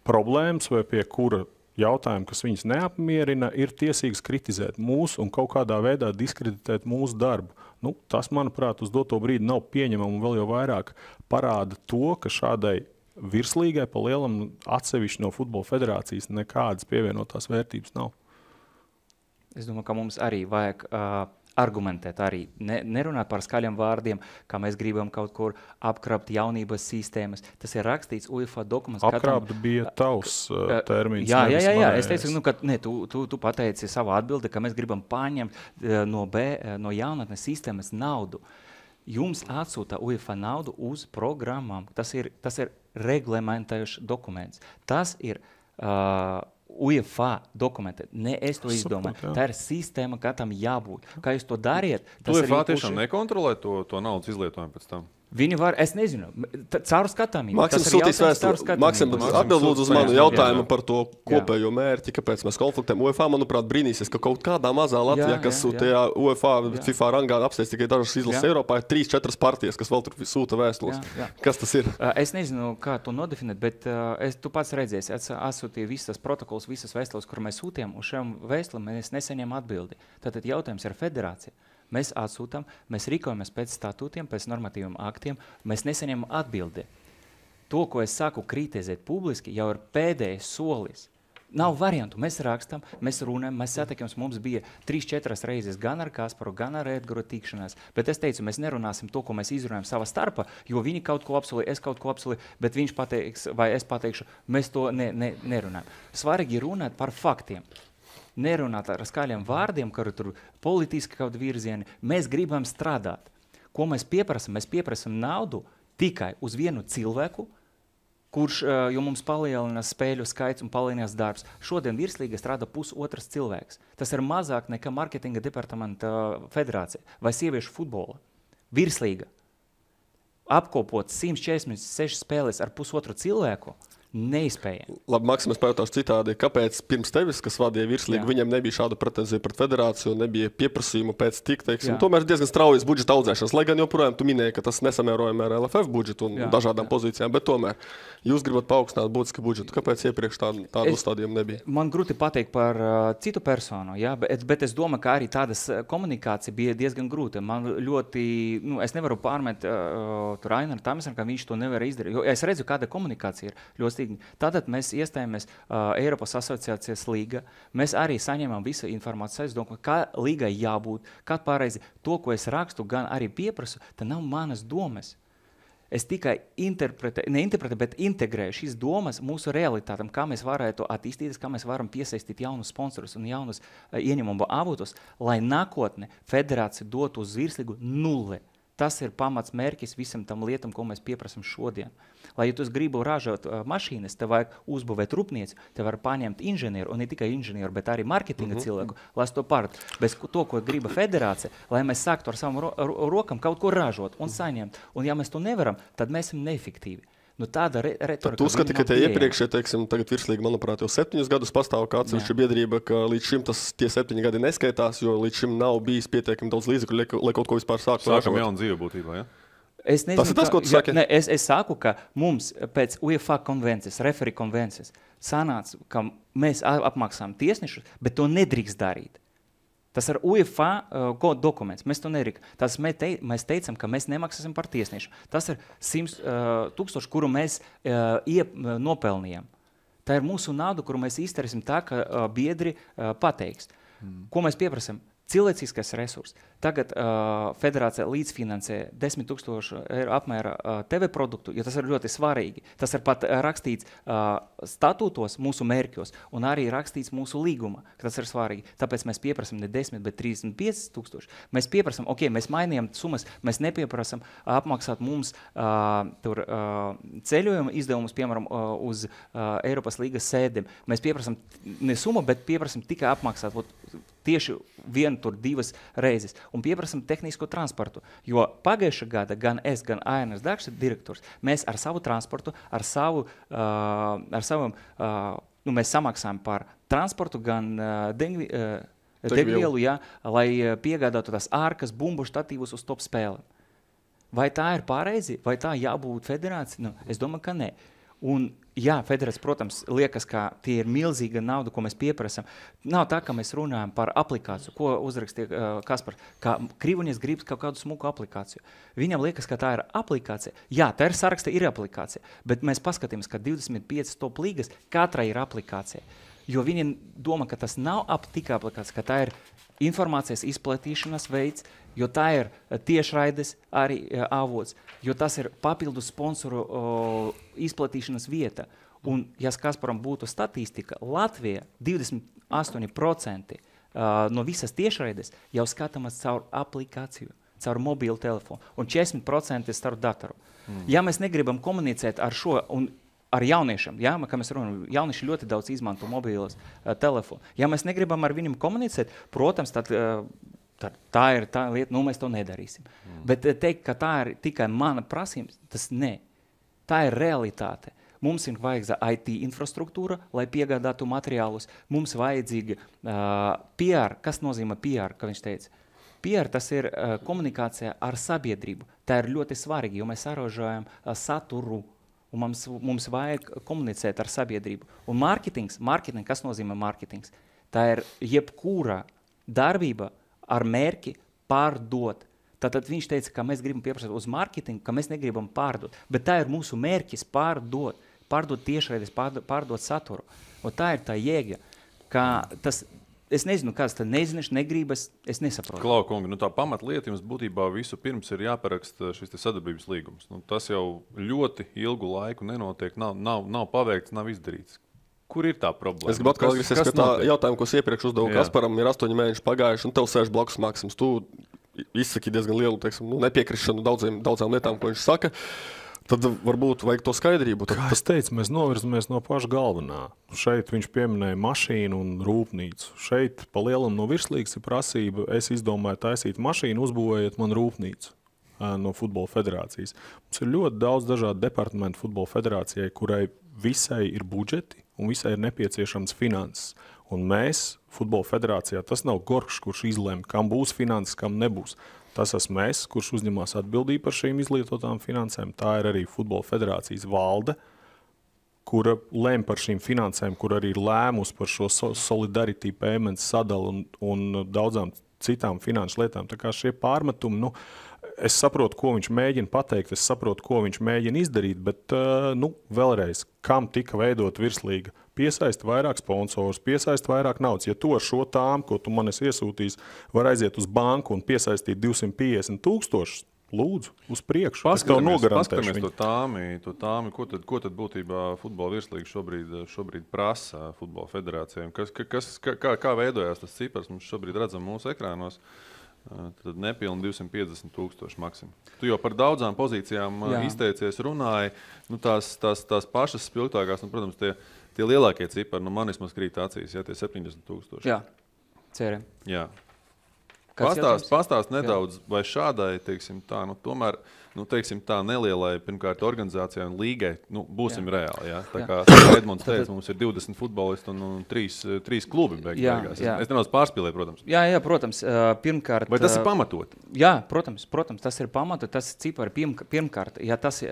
problēmas vai pie kura jautājumi, kas viņus neapmierina, ir tiesīgs kritizēt mūsu un kaut kādā veidā diskreditēt mūsu darbu. Nu, tas, manuprāt, uz doto brīdi nav pieņemama un vēl jau vairāk parāda to, ka šādai virslīgai pa lielam atsevišķi no Futbola federācijas nekādas pievienotās vērtības nav. Es domāju, ka mums arī vajag argumentēt, arī nerunāt par skaļiem vārdiem, kā mēs gribam kaut kur apkrapt jaunības sistēmas. Tas ir rakstīts UEFA dokuments. Apkrapt bija tavs termins. Jā. Es teicu, ka tu pateici savu atbildi, ka mēs gribam paņemt no jaunatnes sistēmas naudu. Jums atsūta UEFA naudu uz programmām. Tas ir reglamentējušs dokuments. Tas ir UEFA dokumenti. Ne es to izdomāju. Tā ir sistēma, kā tam jābūt. Kā jūs to dariet? UEFA tiešām nekontrolē to naudas izlietojumu pēc tam? Viņi var, es nezinu, caur skatāmību. Maksims sūtīs vēstuli. Maksim atbild lūdzu uz manu jautājumu par to kopējo mērķi, kāpēc mēs konfliktējam. UEFA, manuprāt, brīnīsies, ka kaut kādā mazā Latvijā, kas tajā UEFA, FIFA rangā apsteidz tikai dažas izlases Eiropā, ir 3-4 partijas, kas vēl tur sūta vēstules. Kas tas ir? Es nezinu, kā to nodefinēt, bet tu pats redzēsi, atsūtīju visas protokols, visas vēstules, kur mēs sūtījām, uz šiem vēstulēm mēs nesaņem atbildi. Tātad jautājums ir federācija. Mēs atsūtam, mēs rīkojamies pēc statūtiem, pēc normatīviem aktiem, mēs nesaņemam atbildi. To, ko es saku kritizēt publiski, jau ir pēdējais solis. Nav variantu. Mēs rakstam, mēs runājam, mēs satiekamies. Mums bija 3-4 reizes gan ar Kasparu, gan ar Edgaru tikšanās. Bet es teicu, mēs nerunāsim to, ko mēs izrunājam savā starpā, jo viņi kaut ko apsolīja, es kaut ko apsolīju, bet viņš pateiks, vai es pateikšu, mēs to nerunājam. Svarīgi runāt par faktiem. Nerunāt ar skaļiem vārdiem, kā tur politiski kaut virzieni. Mēs gribam strādāt. Ko mēs pieprasam? Mēs pieprasam naudu tikai uz vienu cilvēku, kurš, jo mums palielinās spēļu skaits un palielinās darbs. Šodien virslīga strādā pusotrs cilvēks. Tas ir mazāk nekā marketinga departamenta federācija vai sieviešu futbola. Virslīga. Apkopot 146 spēles ar pusotru cilvēku, neizspējami. Labi, Maksim, es pajautāšu citādi. Kāpēc pirms tevis, kas vadīja virslīgu, viņam nebija šāda pretenzija pret federāciju, nebija pieprasījumu pēc tik, teiksim, tomēr diezgan straujas budžeta audzēšanas, lai gan joprojām tu minēji, ka tas nesamērojami ar LFF budžetu un dažādām pozīcijām, bet tomēr jūs gribat paaugstināt būtiski budžetu. Kāpēc iepriekš tādu uzstādījumu nebija? Man grūti pateikt par citu personu, bet es domāju, ka arī tādas komunikācija bija diezgan grūta. Man ļoti, es nevaru pārmet tur Ainaru Tamesam, ka viņš to nevar izdarīt, jo es redzu, kāda komunikācija ir ļoti stīgni. Tātad mēs iestājāmies Eiropas asociācijas līga, mēs arī saņemam visu informāciju, es domāju, kā līgai jābūt, kā pareizi to, ko es rakstu, gan arī pieprasu, tā nav manas domas. Es tikai neinterpretēju, bet integrēju šīs domas mūsu realitātam, kā mēs varētu attīstīties, kā mēs varam piesaistīt jaunus sponsorus un jaunus ieņemumu avotus, lai nākotne federācija dotu uz virslīgu 0. Tas ir pamats mērķis visam tam lietam, ko mēs pieprasam šodien. Lai, ja tu gribi ražot mašīnas, tev vajag uzbūvēt rūpnieci, tev var paņemt inženieru, un ne tikai inženieru, bet arī marketinga cilvēku, lai to pārt. Bez to, ko griba federācija, lai mēs sāktu ar savam rokam kaut ko ražot un saņemt. Un ja mēs to nevaram, tad mēs esam neefektīvi. Tāda retorika. Tu uzskati, ka tie iepriekšē, teiksim, tagad virslīgi, manuprāt, jau 7 gadus pastāv kā atsevišķa biedrība, ka līdz šim tie 7 gadi neskaitās, jo līdz šim nav bijis pietiekami daudz līdzekļu, lai kaut ko vispār sāktu. Sākam jaunu dzīvi būtībā, ja? Es nezinu, tas ir tas, ko tu saki? Es saku, ka mums pēc UEFA konvencijas, referī konvencijas, sanāca, ka mēs apmaksājam tiesnešus, bet to nedrīkst darīt. Tas ir UEFA dokuments. Mēs to nerīkam. Mēs teicam, ka mēs nemaksāsim par tiesnešu. Tas ir 100 000, kuru mēs nopelnījām. Tā ir mūsu nauda, kuru mēs izdarīsim tā, ka biedri pateiks. Ko mēs pieprasam? Cilvēciskais resurs. Tagad federācija līdzfinansē 10 000 eiro apmēra TV produktu, jo tas ir ļoti svarīgi. Tas ir pat rakstīts statūtos mūsu mērķos un arī rakstīts mūsu līguma, ka tas ir svarīgi. Tāpēc mēs pieprasam ne 10, bet 35 000. Mēs pieprasam, mēs mainījām summas, mēs nepieprasam apmaksāt mums ceļojumu izdevumus, piemēram, uz Eiropas līgas sēdēm. Mēs pieprasam ne summu, bet pieprasam tikai apmaksāt tieši 1-2 reizes un pieprasam tehnisko transportu, jo pagājušā gada gan es, gan Ainas Dakša direktors, mēs ar savu transportu, mēs samaksājam par transportu gan degvielu, lai piegādātu tās ārkas bumbu štatīvus uz top spēlēm. Vai tā ir pareizi? Vai tā jābūt federācija? Es domāju, ka nē. Un, jā, federācija, protams, liekas, ka tie ir milzīga nauda, ko mēs pieprasam. Nav tā, ka mēs runājam par aplikāciju, ko uzrakstīja Kaspars, ka Krivunieks grib kaut kādu smuku aplikāciju. Viņam liekas, ka tā ir aplikācija. Jā, tā ir saraksta, ir aplikācija, bet mēs paskatīmies, ka 25 top līgas katrai ir aplikācija. Jo viņi domā, ka tas nav tikai aplikācija, ka tā ir informācijas izplatīšanas veids, jo tā ir tiešraides arī avots, jo tas ir papildu sponsoru izplatīšanas vieta. Un, ja Kasparam būtu statistika, Latvija 28% no visas tiešraides jau skatāmas caur aplikāciju, caur mobilu telefonu, un 40% caur datoru. Ja mēs negribam komunicēt ar šo, un ar jauniešiem, ja, kā mēs runājam, jaunieši ļoti daudz izmanto mobilos telefonu. Ja mēs negribam ar viņiem komunicēt, protams, tad tā ir tā lieta, mēs to nedarīsim. Bet teikt, ka tā ir tikai mana prasības, tas ne. Tā ir realitāte. Mums ir vajadzīga IT infrastruktūra, lai piegādātu materiālus. Mums vajadzīga PR. Kas nozīmē PR, kā viņš teica? PR tas ir komunikācija ar sabiedrību. Tā ir ļoti svarīgi, jo mēs saražojam saturu. Un mums vajag komunicēt ar sabiedrību. Un mārketings, kas nozīmē mārketings? Tā ir jebkura darbība ar mērķi pārdot. Tātad viņš teica, ka mēs gribam pieprasīt uz mārketingu, ka mēs negribam pārdot. Bet tā ir mūsu mērķis pārdot tiešraides, pārdot saturu. Un tā ir tā jēga, ka tas... Es nezinu, kāds tad nezināšu, negribas, es nesaprotu. Klau, kungi, tā pamatlieta jums būtībā visu pirms ir jāparaksta šis sadarbības līgums. Tas jau ļoti ilgu laiku nenotiek, nav paveikts, nav izdarīts. Kur ir tā problēma? Es gribu atkal atgriezties pie tā jautājumu, ko es iepriekš uzdevu Kasparam, ir 8 mēneši pagājuši, un tev sēž blakus Maksims. Tu izsaki diezgan lielu, nepiekrišanu daudzām lietām, ko viņš saka. Tad varbūt vajag to skaidrību. Kā es teicu, mēs novirzamies no paša galvenā. Šeit viņš pieminēja mašīnu un rūpnīcu. Šeit pa lielam no virslīgas ir prasība, es izdomāju taisīt mašīnu, uzbūvējiet man rūpnīcu no Futbola federācijas. Mums ir ļoti daudz dažādu departamentu Futbola federācijai, kurai visai ir budžeti un visai ir nepieciešams finanses. Un mēs, Futbola federācijā, tas nav Gorkšs, kurš izlem, kam būs finanses, kam nebūs. Tas esmu es, kurš uzņemās atbildību par šīm izlietotām finansēm. Tā ir arī Futbola federācijas valde, kura lem par šīm finansēm, kur arī ir lēmus par šo solidarity payments sadalu un daudzām citām finanšu lietām. Tā kā šie pārmetumi, es saprotu, ko viņš mēģina pateikt, es saprotu, ko viņš mēģina izdarīt, bet vēlreiz, kam tika veidot virslīga? Piesaist vairāk sponsorus, piesaist vairāk naudas. Ja tu ar šo tām, ko tu man esi iesūtījis, var aiziet uz banku un piesaistīt 250,000, lūdzu, uz priekšu. Paskatāmies to tāmi. Ko tad būtībā futbola virslīga šobrīd prasa futbola federācijām? Kā veidojās tas cipars? Mums šobrīd redzam mūsu ekrānos. Tad nepilni 250,000 maksimum. Tu jau par daudzām pozīcijām izteicies, runāji. Tās pašas spilgtākās, protams, tie lielākie cipari, man vismaz krīt acīs, tie 70,000. Jā, ceram. Jā. Pastāst nedaudz, vai šādai, teiksim tā, tomēr, teiksim tā, nelielai, pirmkārt, organizācijai un līgai, būsim reāli, jā? Tā kā Edmunds teica, mums ir 20 futbolisti un 3 klubi beigās. Es nedaudz pārspīlēju, protams. Jā, protams, pirmkārt... Vai tas ir pamatot? Jā, protams, tas ir pamatot, tas cipari pirmkārt, ja tas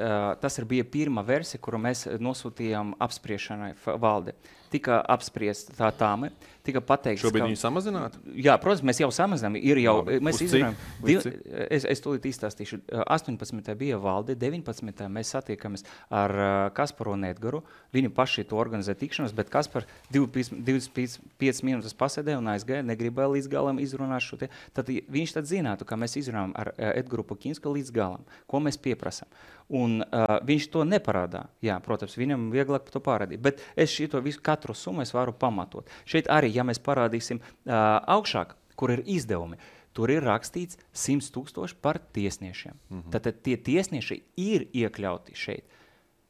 bija pirmā versija, kuru mēs nosūtījām apspriešanai valde. Tika apspriest tā tāme, tika pateikts, šobrīd viņi samazinātu? Jā, protams, mēs jau samazinām. Mēs izrunājam, es tūlīt izstāstīšu. 18. bija valde, 19. mēs satiekamies ar Kasparu un Edgaru. Viņi paši to organizē tikšanos, bet Kaspar 25 minūtes pasēdēja un aizgāja, negribēja līdz galam izrunāt šo te. Tad viņš tad zinātu, ka mēs izrunājam ar Edgaru Pukinsku līdz galam, ko mēs pieprasam. Un viņš to neparādā. Jā, protams, viņam vieglāk to parādīt. Bet es šito visu katru summu es varu pamatot. Šeit arī, ja mēs parādīsim augšāk, kur ir izdevumi, tur ir rakstīts 100,000 par tiesniešiem. Tātad tie tiesnieši ir iekļauti šeit.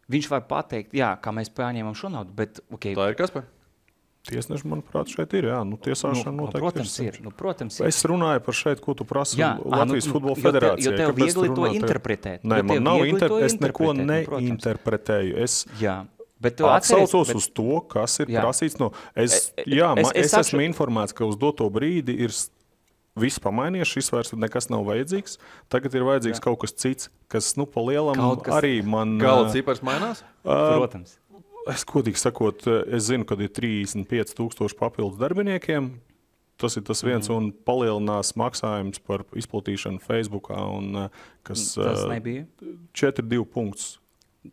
Viņš var pateikt, jā, kā mēs paņēmām šo naudu, bet... Okay. Tā ir Kaspar? Tiesneši, manuprāt, šeit ir, jā. Tiesāšana noteikti protams ir. Es runāju par šeit, ko tu prasi Latvijas Futbola federācijai. Jo tev viegli to interpretēt. Nē, man nav es neko neinterpretēju. Es atsaucos uz to, kas ir prasīts no... Es esmu informēts, ka uz doto brīdi ir viss pamainījies, šis vairs nekas nav vajadzīgs. Tagad ir vajadzīgs kaut kas cits, kas, pa lielam arī man... Gala cipars mainās? Protams. Es godīgi sakot, es zinu, kad ir 35,000 papildus darbiniekiem. Tas ir tas viens un palielinās maksājums par izplatīšanu Facebookā, un kas Tas nebija? 4,2 punktus.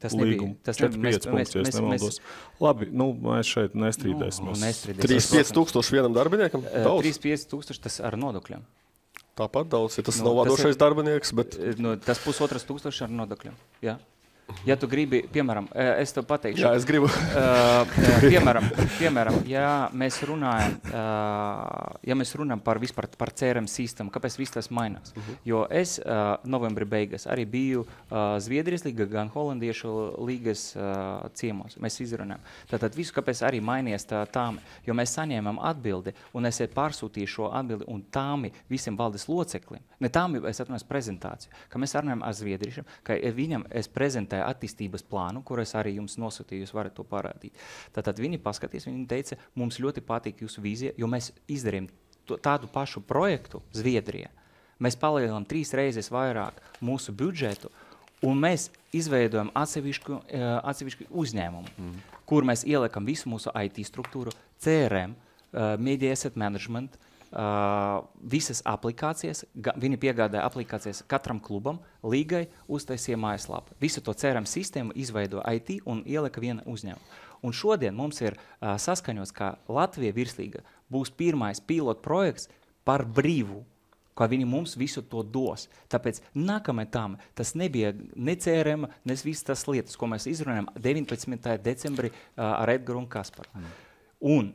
Tas nebija. Tas 4,5 punktus, ja es nemaldos. Labi, mēs šeit nestrīdēsimies. 35,000 vienam darbiniekam? 35,000 tas ar nodokļiem. Tāpat daudz, ja tas nav vadošais darbinieks, bet... Tas 1,500 ar nodokļiem, jā. Ja tu gribi, piemēram, es tev pateikšu. Jā, es gribu. Piemēram, ja mēs runājam par CRM sistēmu, kāpēc viss tas mainās? Jo es novembri beigas arī biju Zviedrijas līga, gan Holandiešu līgas ciemos. Mēs izrunājam. Tātad visu, kāpēc arī mainījies tāmi, jo mēs saņēmām atbildi, un es pārsūtīju šo atbildi, un tāmi visiem valdes loceklim. Ne tāmi, es atnāju prezentāciju, ka mēs runājam ar Zviedriešiem, ka viņam es prezentēju attīstības plānu, kur es arī jums nosūtīju, jūs varat to parādīt. Tātad viņi paskatīs, viņi teica, mums ļoti patīk jūsu vīzija, jo mēs izdarījām tādu pašu projektu Zviedrijā. Mēs palielinām 3 reizes vairāk mūsu budžetu, un mēs izveidojam atsevišķu uzņēmumu, kur mēs ieliekam visu mūsu IT struktūru, CRM, Media Asset Management, visas aplikācijas, viņi piegādāja aplikācijas katram klubam, līgai uztaisīja mājaslapu. Visu to CRM sistēmu izveido IT un ielika viena uzņēmuma. Un šodien mums ir saskaņots, ka Latvija virslīga būs pirmais pilot projekts par brīvu, ka viņi mums visu to dos. Tāpēc nākamajā tam tas nebija ne CRM, ne visas tas lietas, ko mēs izrunājam 19. decembrī ar Edgaru un Kasparu. Un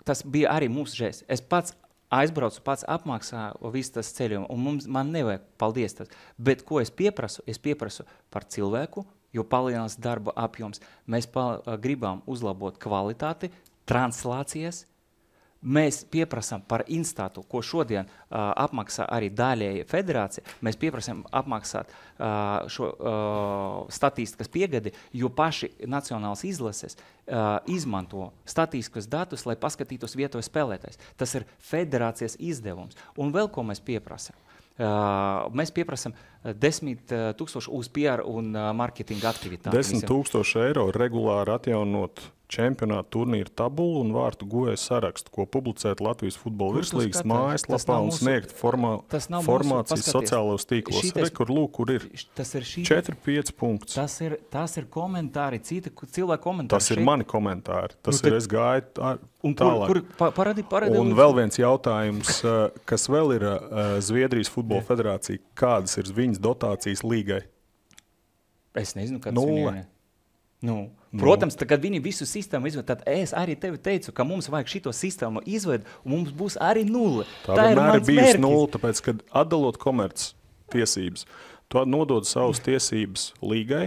tas bija arī mūsu žēsts. Es pats aizbraucu, pats apmaksāju visu tas ceļojumu, un man nevajag paldies tas. Bet ko es pieprasu? Es pieprasu par cilvēku, jo palielinās darba apjoms. Mēs gribam uzlabot kvalitāti, translācijas. Mēs pieprasām par instātu, ko šodien apmaksā arī daļēji federācija. Mēs pieprasām apmaksāt šo statistikas piegadi, jo paši nacionālas izlases izmanto statistikas datus, lai paskatītos vietojas spēlētājs. Tas ir federācijas izdevums. Un vēl ko mēs pieprasām? Mēs pieprasām 10,000 uz PR un marketinga aktivitāti. 10,000 eiro regulāri atjaunot čempionāta turnīra tabulu un vārtu guvēju sarakstu, ko publicēt Latvijas futbola virslīgas mājaslapā un sniegt formāciju sociālajos tīklos. Kur ir 4-5 punkts. Tas ir komentāri, citi cilvēki komentāri. Tas ir mani komentāri. Tas ir, es gāju tālāk. Parādi, un vēl viens jautājums, kas vēl ir Zviedrijas futbola federācija, kādas ir viņas dotācijas līgai? Es nezinu, kādas viņai. Protams, kad viņi visu sistēmu izved, tad es arī tevi teicu, ka mums vajag šito sistēmu izved, un mums būs arī 0. Tā ir bijusi 0, tāpēc, kad atdalot komerc tiesības, tu nodod savas tiesības līgai,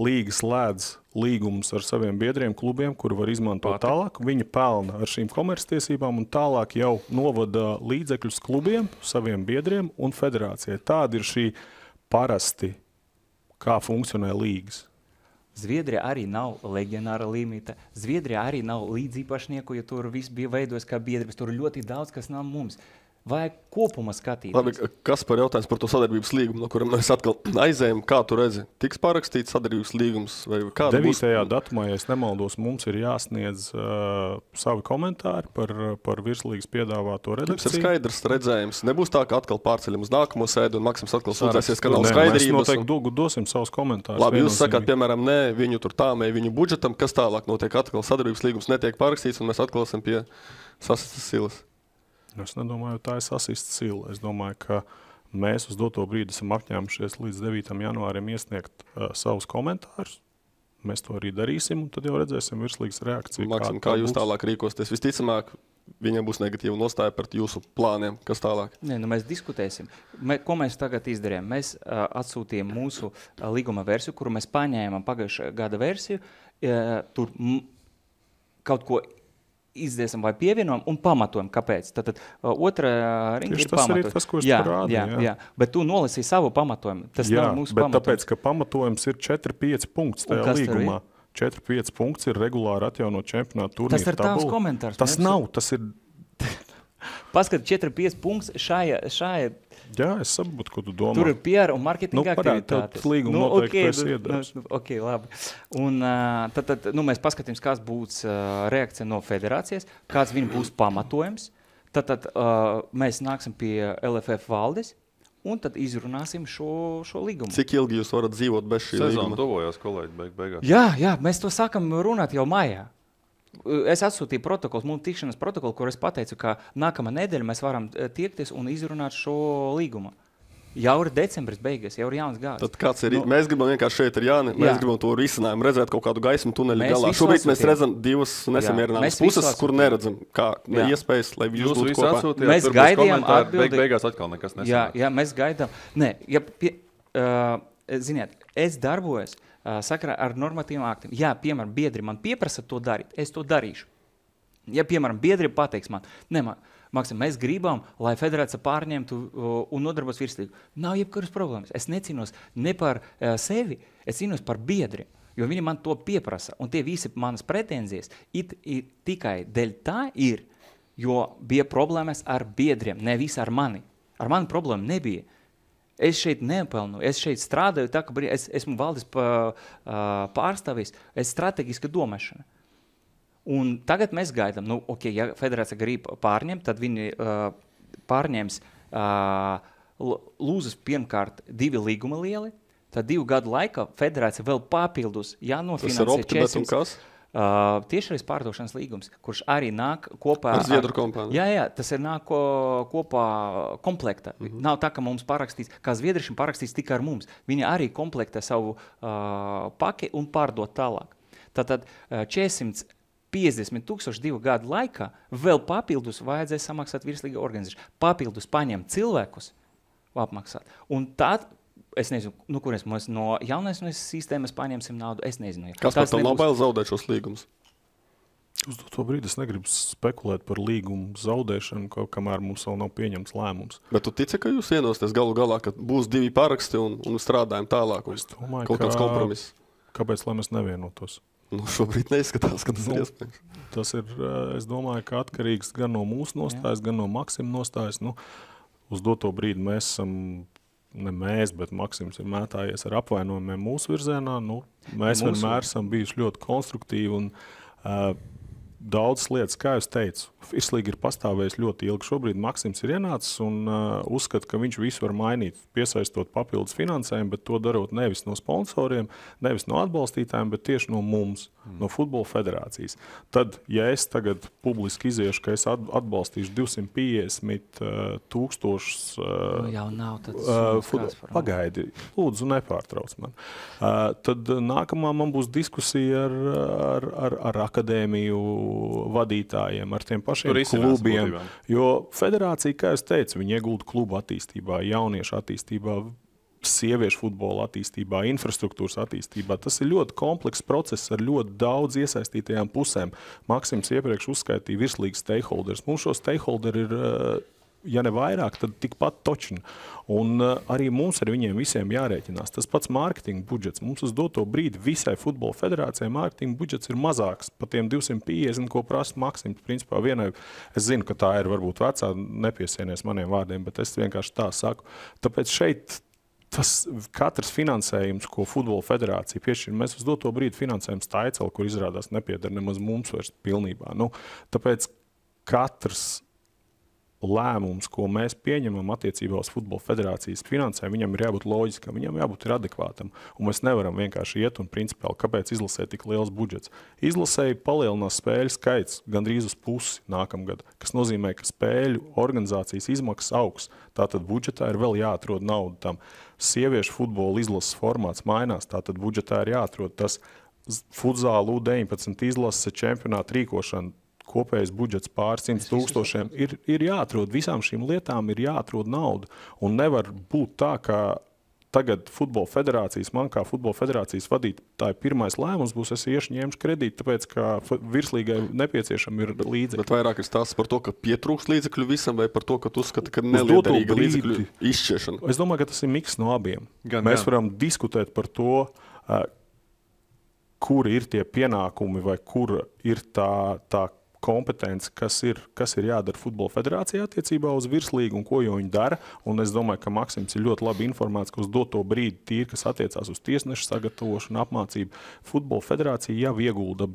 līga slēdz līgumus ar saviem biedriem, klubiem, kuri var izmantot tālāk, viņi pelna ar šīm komerctiesībām un tālāk jau novada līdzekļus klubiem, saviem biedriem un federācijai. Tāda ir šī parasti, kā funkcionē līgas. Zviedrija arī nav leģionāra limita. Zviedrija arī nav līdzīpašnieku, jo tur viss bija veidojis kā biedrības. Tur ļoti daudz, kas nav mums. Vajag kopumā skatīties. Labi, kas par jautājums par to sadarbības līgumu, no kuram mēs atkal aizējam, kā tu redzi? Tiks pārakstīts sadarbības līgums? Vai 9. datumā, ja es nemaldos, mums ir jāsniedz savi komentāri par virslīgas piedāvāto redakciju. Tas ir skaidrs redzējums. Nebūs tā, ka atkal pārceļam uz nākamo sēdu un Maksims atkal sūdzēsies, ka nav skaidrības. Mēs noteikti dosim savus komentārus. Labi, jūs sakāt, piemēram, nē, viņu tur tāmē, viņu budžetam, kas tālāk notiek, atkal sadarbības līgums netiek pārakstīts un mēs atkal esam pie sasistas silas. Es nedomāju, tā ir sasista sila. Es domāju, ka mēs uz doto brīdi esam apņēmušies līdz 9. janvārim iesniegt savus komentārus. Mēs to arī darīsim, un tad jau redzēsim virslīgas reakciju. Maksim, kā jūs tālāk rīkosties? Visticamāk, viņiem būs negatīva nostāja par jūsu plāniem. Kas tālāk? Mēs diskutēsim. Ko mēs tagad izdarījām? Mēs atsūtījām mūsu līguma versiju, kuru mēs paņēmām pagājušā gada versiju. Tur kaut ko izdiesim vai pievienojam un pamatojam, kāpēc. Tātad otrā ringa ir pamatojums. Tas ir tas, ko es parādīju. Jā. Bet tu nolasīji savu pamatojumu. Tas nav mūsu bet pamatojums. Tāpēc, ka pamatojums ir 4-5 punkts tajā līgumā. 4-5 punkts ir regulāri atjaunot čempionātu turnīru. Tas ir tavs komentārs. Tas nav, tas ir... Paskat 4-5 punkts šajā. Jā, es saprotu, ko tu domā. Tur ir PR un marketinga aktivitātes. Tas līguma noteikti pēc iedars. Ok, labi. Un tad mēs paskatīsim, kāds būs reakcija no federācijas, kāds viņa būs pamatojums. Tad mēs nāksim pie LFF valdes un tad izrunāsim šo līgumu. Cik ilgi jūs varat dzīvot bez šī līguma? Sezona tuvojās, kolēģi, beigās. Jā, mēs to sākam runāt jau maijā. Es atsūtīju protokols, mums tikšanas protokolu, kur es pateicu, ka nākamā nedēļa mēs varam tiekties un izrunāt šo līgumu. Jau ir decembris beigas, jau ir jauns gads. Tad kāds ir? Mēs gribam vienkārši šeit ar Jāni, mēs gribam to risinājumu, redzēt kaut kādu gaismu tuneļu galā. Šobrīd mēs redzam divas nesamierināmas puses, kur neredzam, kā iespējas, lai jūs būtu kopā. Atsūtījāt, mēs gaidījām atbildi. Beigās atkal nekas nesanāk. Jā, mēs gaidām. Nē, ziniet, es darbojos sakarā ar normatīviem aktiem. Jā, piemēram, biedri man pieprasa to darīt, es to darīšu. Ja, piemēram, biedri pateiks man, Maksim, mēs gribam, lai federācija pārņemtu un nodarbos virslīgu. Nav jebkuras problēmas. Es necīnos ne par sevi, es cīnos par biedriem, jo viņi man to pieprasa. Un tie visi manas pretenzijas tikai dēļ tā ir, jo bija problēmas ar biedriem, nevis ar mani. Ar mani problēma nebija. Es šeit nepelnu, es šeit strādāju, tā, ka es esmu valdes pārstāvis, es strateģiska domāšana. Un tagad mēs gaidām, ja federācija grib pārņemt, tad viņi pārņems lūzas pirmkārt 2 līguma lieli, tad 2 gadu laikā federācija vēl papildus jānofinansē 400. Tiešais pārdošanas līgums, kurš arī nāk kopā ar Zviedru kompāniju. Jā, tas ir nāk kopā komplekta. Nav tā, ka mums parakstīts, kā zviedrišiem parakstīts tikai ar mums. Viņi arī komplektē savu paki un pārdot tālāk. Tātad 450,000 2 gadu laikā vēl papildus vajadzēs samaksāt virslīga organizāciju. Papildus paņemt cilvēkus apmaksāt. Un tad es nezinu, kur mēs no jaunais sistēmas paņemsim naudu, es nezinu. Kas par tam nav bail zaudēt šos līgumus? Uz to brīdi es negribu spekulēt par līgumu zaudēšanu, kamēr mums vēl nav pieņemts lēmums. Bet tu tici, ka jūs vienosties galu galā, ka būs 2 paraksti un strādājam tālāk? Es domāju, kaut kāds kompromiss. Kāpēc, lai mēs nevienotos? Šobrīd neizskatās, ka tas ir iespējams. Tas ir, es domāju, ka atkarīgs gan no mūsu nostājas, gan no Maksima nostājas. Uz doto brīdi mēs esam... Ne mēs, bet Maksims ir mētājies ar apvainojumiem mūsu virzienā. Mēs vienmēr esam bijuši ļoti konstruktīvi un daudzas lietas, kā jūs teicu, virslīga ir pastāvējis ļoti ilgi. Šobrīd Maksims ir ienācis un uzskata, ka viņš visu var mainīt, piesaistot papildus finansējumu, bet to darot nevis no sponsoriem, nevis no atbalstītājiem, bet tieši no mums, no Futbola federācijas. Tad, ja es tagad publiski iziešu, ka es atbalstīšu 250,000 jau nav pagaidi, lūdzu, nepārtrauc man. Tad nākamā man būs diskusija ar akadēmiju vadītājiem, ar tiem pašiem klubiem. Jo federācija, kā es teicu, viņi iegulda klubu attīstībā, jauniešu attīstībā, sieviešu futbola attīstībā, infrastruktūras attīstībā. Tas ir ļoti komplekss process ar ļoti daudz iesaistītajām pusēm. Maksims iepriekš uzskaitīja virslīgas stakeholders. Mums šo stakeholderi ir, ja ne vairāk, tad tikpat točni. Un arī mums ar viņiem visiem jārēķinās. Tas pats mārketinga budžets. Mums uz doto brīdi visai futbola federācijai mārketinga budžets ir mazāks par tiem 250, ko prasa Maksims. Principā vienai, es zinu, ka tā ir varbūt vecā, nepiesienies maniem vārdiem, bet es vienkārši tā saku. Tāpēc šeit tas katrs finansējums, ko futbola federācija piešķir, mēs uz doto brīdi finansējam Staicelu, kur izrādās nepieder nemaz mums vairs pilnībā. Tāpēc katrs lēmums, ko mēs pieņemam attiecībā uz futbola federācijas finansējumu, viņam ir jābūt loģiskam, viņam jābūt adekvātam. Un mēs nevaram vienkārši iet un principiāli, kāpēc izlasē tik liels budžets. Izlasēji palielinās spēļu skaits gandrīz uz pusi nākamgad, kas nozīmē, ka spēļu organizācijas izmaksas augs. Tātad budžetā ir vēl jāatrod naudu tam. Sieviešu futbola izlases formāts mainās, tātad budžetā ir jāatrod tas futzāla U19 izlases čempionāta rīkošana. Kopējais budžets pār 100,000 ir jāatrod. Visām šīm lietām ir jāatrod nauda. Un nevar būt tā, ka tagad futbola federācijas, man kā futbola federācijas vadītāji pirmais lēmums būs, es iešu ņemšu kredītu, tāpēc, ka virslīgai nepieciešami ir līdzekļi. Bet vairāk ir stāsts par to, ka pietrūks līdzekļu visam, vai par to, ka tu uzskati, ka neliederīga līdzekļu izšķiešana? Es domāju, ka tas ir miks no abiem. Mēs varam diskutēt par to, kur ir tie pienākumi vai kur ir tā kompetence, kas ir jādara futbola federācijā attiecībā uz virslīgu un ko jau viņi dara. Un es domāju, ka Maksims ir ļoti labi informēts, ka uz doto brīdi tīri, kas attiecās uz tiesnešu sagatavošanu, apmācību, futbola federācija jau iegulda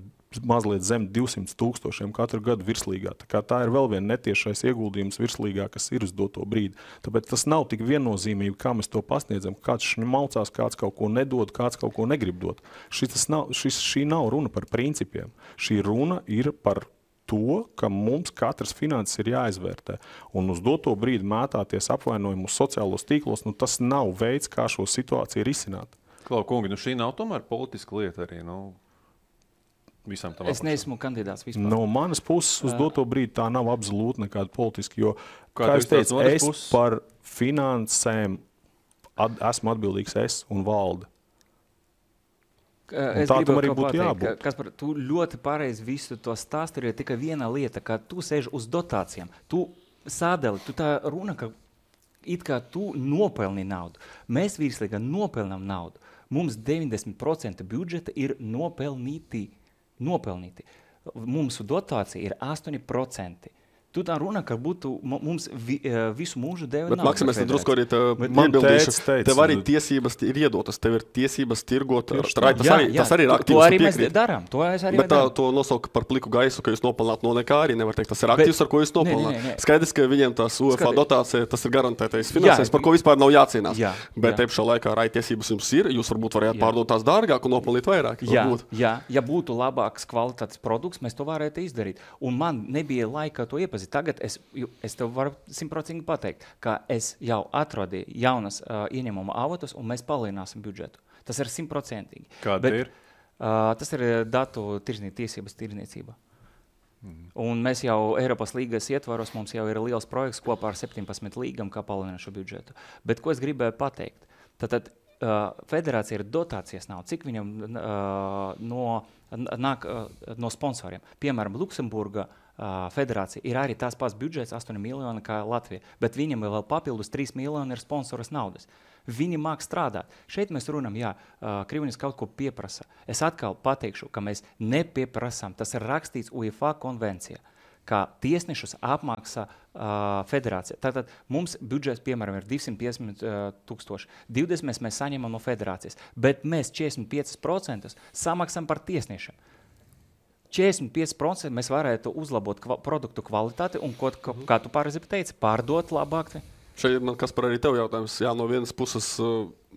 mazliet zem 200,000 katru gadu virslīgā. Tā ir vēl viena netiešais ieguldījums virslīgā, kas ir uz doto brīdi. Tāpēc tas nav tik viennozīmīgi, kā mēs to pasniedzam. Kāds šņmalcās, kāds kaut ko nedod, kāds kaut ko negrib dot. Šī nav runa par principiem. Šī runa ir par to, ka mums katrs finanses ir jāizvērtē. Un uz doto brīdi mētāties apvainojumu uz sociālos tīklos, tas nav veids, kā šo situāciju risināt. Klau, kungi, šī nav tomēr politiska lieta arī, visam tam Es neesmu kandidāts vispār. No manas puses uz doto brīdi tā nav absolūti nekāda politiska, jo, kā es teicu, par finansēm esmu atbildīgs es un valde. Es tā tam gribu arī kaut būtu pateikt, jābūt. Kaspar, tu ļoti pareizi visu to stāsti, ir tikai viena lieta, ka tu sēži uz dotācijām. Tu sādali, tu tā runa, ka it kā tu nopelni naudu. Mēs virslīgā nopelnām naudu. Mums 90% budžeta ir nopelnīti. Mums dotācija ir 8%. Tu tā runa, ka būtu mums visu mūžu deva naudu. Bet, Maksim, es drusku arī iebildīšu. Tev arī tiesības ir iedotas. Tev ir tiesības tirgot. Tas arī ir aktīvs. To arī mēs darām. Bet to nosauka par pliku gaisu, ka jūs nopelnāt no nekā arī nevar teikt. Tas ir aktīvs, ar ko jūs nopelnāt. Skaidrs, ka viņiem tās UEFA dotācija, tas ir garantētais finansējums, par ko vispār nav jācīnās. Bet te pašā laikā arī tiesības jums ir. Jūs varbūt varētu pārdot tās dārgāk un nopelnīt vairāk. Ja būtu labāks kvalitātes produkts, mēs to varētu izdarīt. Un man nebija laika to iepazīt. Tagad es tev varu 100% pateikt, ka es jau atradu jaunas ieņēmuma avotus un mēs palielināsim budžetu. Tas ir 100%. Kāda ir? Tas ir datu tiesības tirzniecība. Un mēs jau Eiropas līgas ietvaros, mums jau ir liels projekts kopā ar 17 līgām, kā palielināt šo budžetu. Bet ko es gribēju pateikt? Tātad federācija ir dotācijas nav. Cik viņam nāk no sponsoriem? Piemēram, Luksemburga federācija ir arī tās pats budžets 8 miljoni kā Latvija, bet viņam vēl papildus 3 miljoni ir sponsoras naudas. Viņi māk strādāt. Šeit mēs runam, Krievijas kaut ko pieprasa. Es atkal pateikšu, ka mēs nepieprasām. Tas ir rakstīts UEFA konvencijā, ka tiesnešus apmaksā federācija. Tātad mums budžets, piemēram, ir 250,000. 20 mēs saņemam no federācijas, bet mēs 45% samaksam par tiesnešiem. 45% mēs varētu uzlabot produktu kvalitāti un, kā tu pareizi teici, pārdot labāk. Šeit man, Kaspar, arī tev jautājums. No vienas puses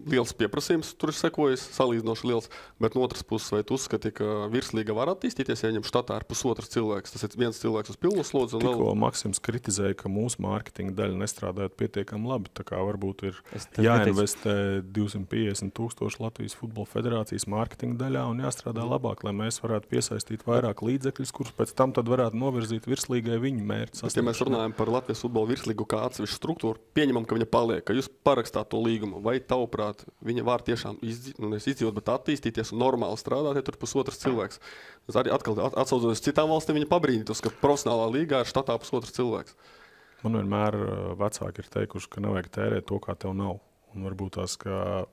liels pieprasījums tur ir sekojis, salīdzinoši liels, bet no otras puses, vai tu uzskati, ka virslīga var attīstīties, ja ņem štatā ar pusotrs cilvēks? Tas ir viens cilvēks uz pilnu slodzi. Tikko Maksims kritizēja, ka mūsu mārketinga daļa nestrādājot pietiekami labi, tā kā varbūt ir jāinvestē 250,000 Latvijas futbola federācijas mārketinga daļā un jāstrādā labāk, lai mēs varētu piesaistīt vairāk līdzekļus, kurus pēc tam tad varētu novirzīt virslīgai viņu mērķi. Ja mēs runājam par Latvijas futbola virslīgu kā atsevišķu struktūru, pieņemam, ka viņa paliek, ka jūs parakstāt to līgumu, vai tavuprāt viņa var tiešām izdzīvot, bet attīstīties un normāli strādāt, ja tur pusotrs cilvēks. Es arī atkal atsaucoties citām valstīm, viņa pabrīnītos, ka profesionālā līgā ir štatā pusotrs cilvēks. Man vienmēr vecāki ir teikuši, ka nevajag tērēt to, kā tev nav. Un varbūt tās, ka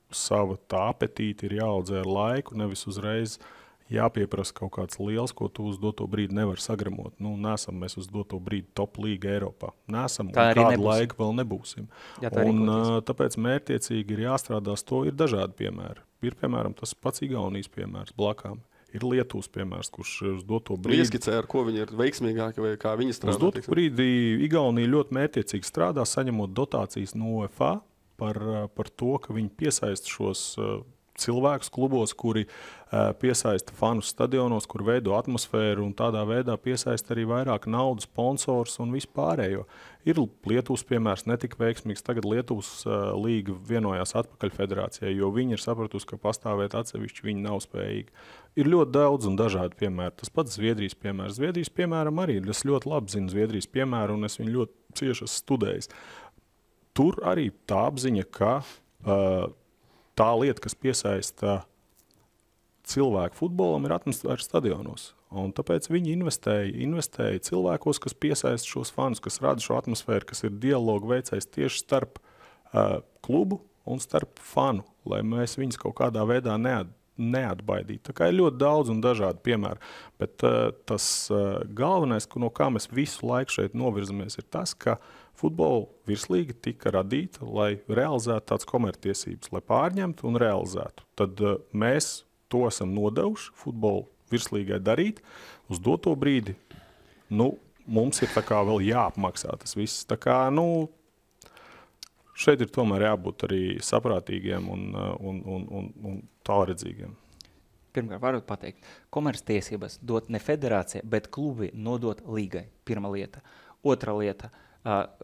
sava tā apetīte ir jāaudzē ar laiku, nevis uzreiz jāpieprasa kaut kāds liels, ko tu uz doto brīdi nevar sagramot. Nesam mēs uz doto brīdi top līga Eiropā. Nesam, un kādu laiku vēl nebūsim. Tāpēc mērķiecīgi ir jāstrādās to, ir dažādi piemēri. Ir, piemēram, tas pats Igaunijas piemērs blakām. Ir Lietuvas piemērs, kurš uz doto brīdi... Ieskicē, ar ko viņi ir veiksmīgāki vai kā viņi strādā? Uz doto brīdi Igaunija ļoti mērķiecīgi strādā, saņemot dotācijas no UEFA par to, ka viņi piesaista šos cilvēkus klubos, kuri piesaista fanus stadionos, kur veido atmosfēru un tādā veidā piesaista arī vairāk naudas, sponsors un vispārējo. Ir Lietuvas piemērs netika veiksmīgs, tagad Lietuvas līga vienojās atpakaļ federācijai, jo viņi ir sapratusi, ka pastāvēt atsevišķi viņi nav spējīgi. Ir ļoti daudz un dažādi piemēri. Tas pats Zviedrijas piemērs. Zviedrijas piemēram arī, es ļoti labi zinu Zviedrijas piemēru un es viņu ļoti cieši esmu studējis. Tur arī tā apziņa, ka tā lieta, kas piesaista cilvēku futbolam, ir atmosfēra stadionos. Un tāpēc viņi investēja cilvēkos, kas piesaista šos fanus, kas rada šo atmosfēru, kas ir dialogu veicējs tieši starp klubu un starp fanu, lai mēs viņus kaut kādā veidā neatbaidīt. Tā kā ir ļoti daudz un dažādi piemēri. Bet tas galvenais, no kā mēs visu laiku šeit novirzamies, ir tas, ka futbola virslīga tika radīta, lai realizētu tādas komerctiesības, lai pārņemtu un realizētu. Tad mēs to esam nodevuši futbola virslīgai darīt uz doto brīdi. Mums ir tā kā vēl jāapmaksā tas viss. Tā kā, šeit ir tomēr jābūt arī saprātīgiem un tālredzīgiem. Pirmkārt, varu pateikt, komerctiesības dot ne federācija, bet klubi nodot līgai. Pirma lieta. Otra lieta.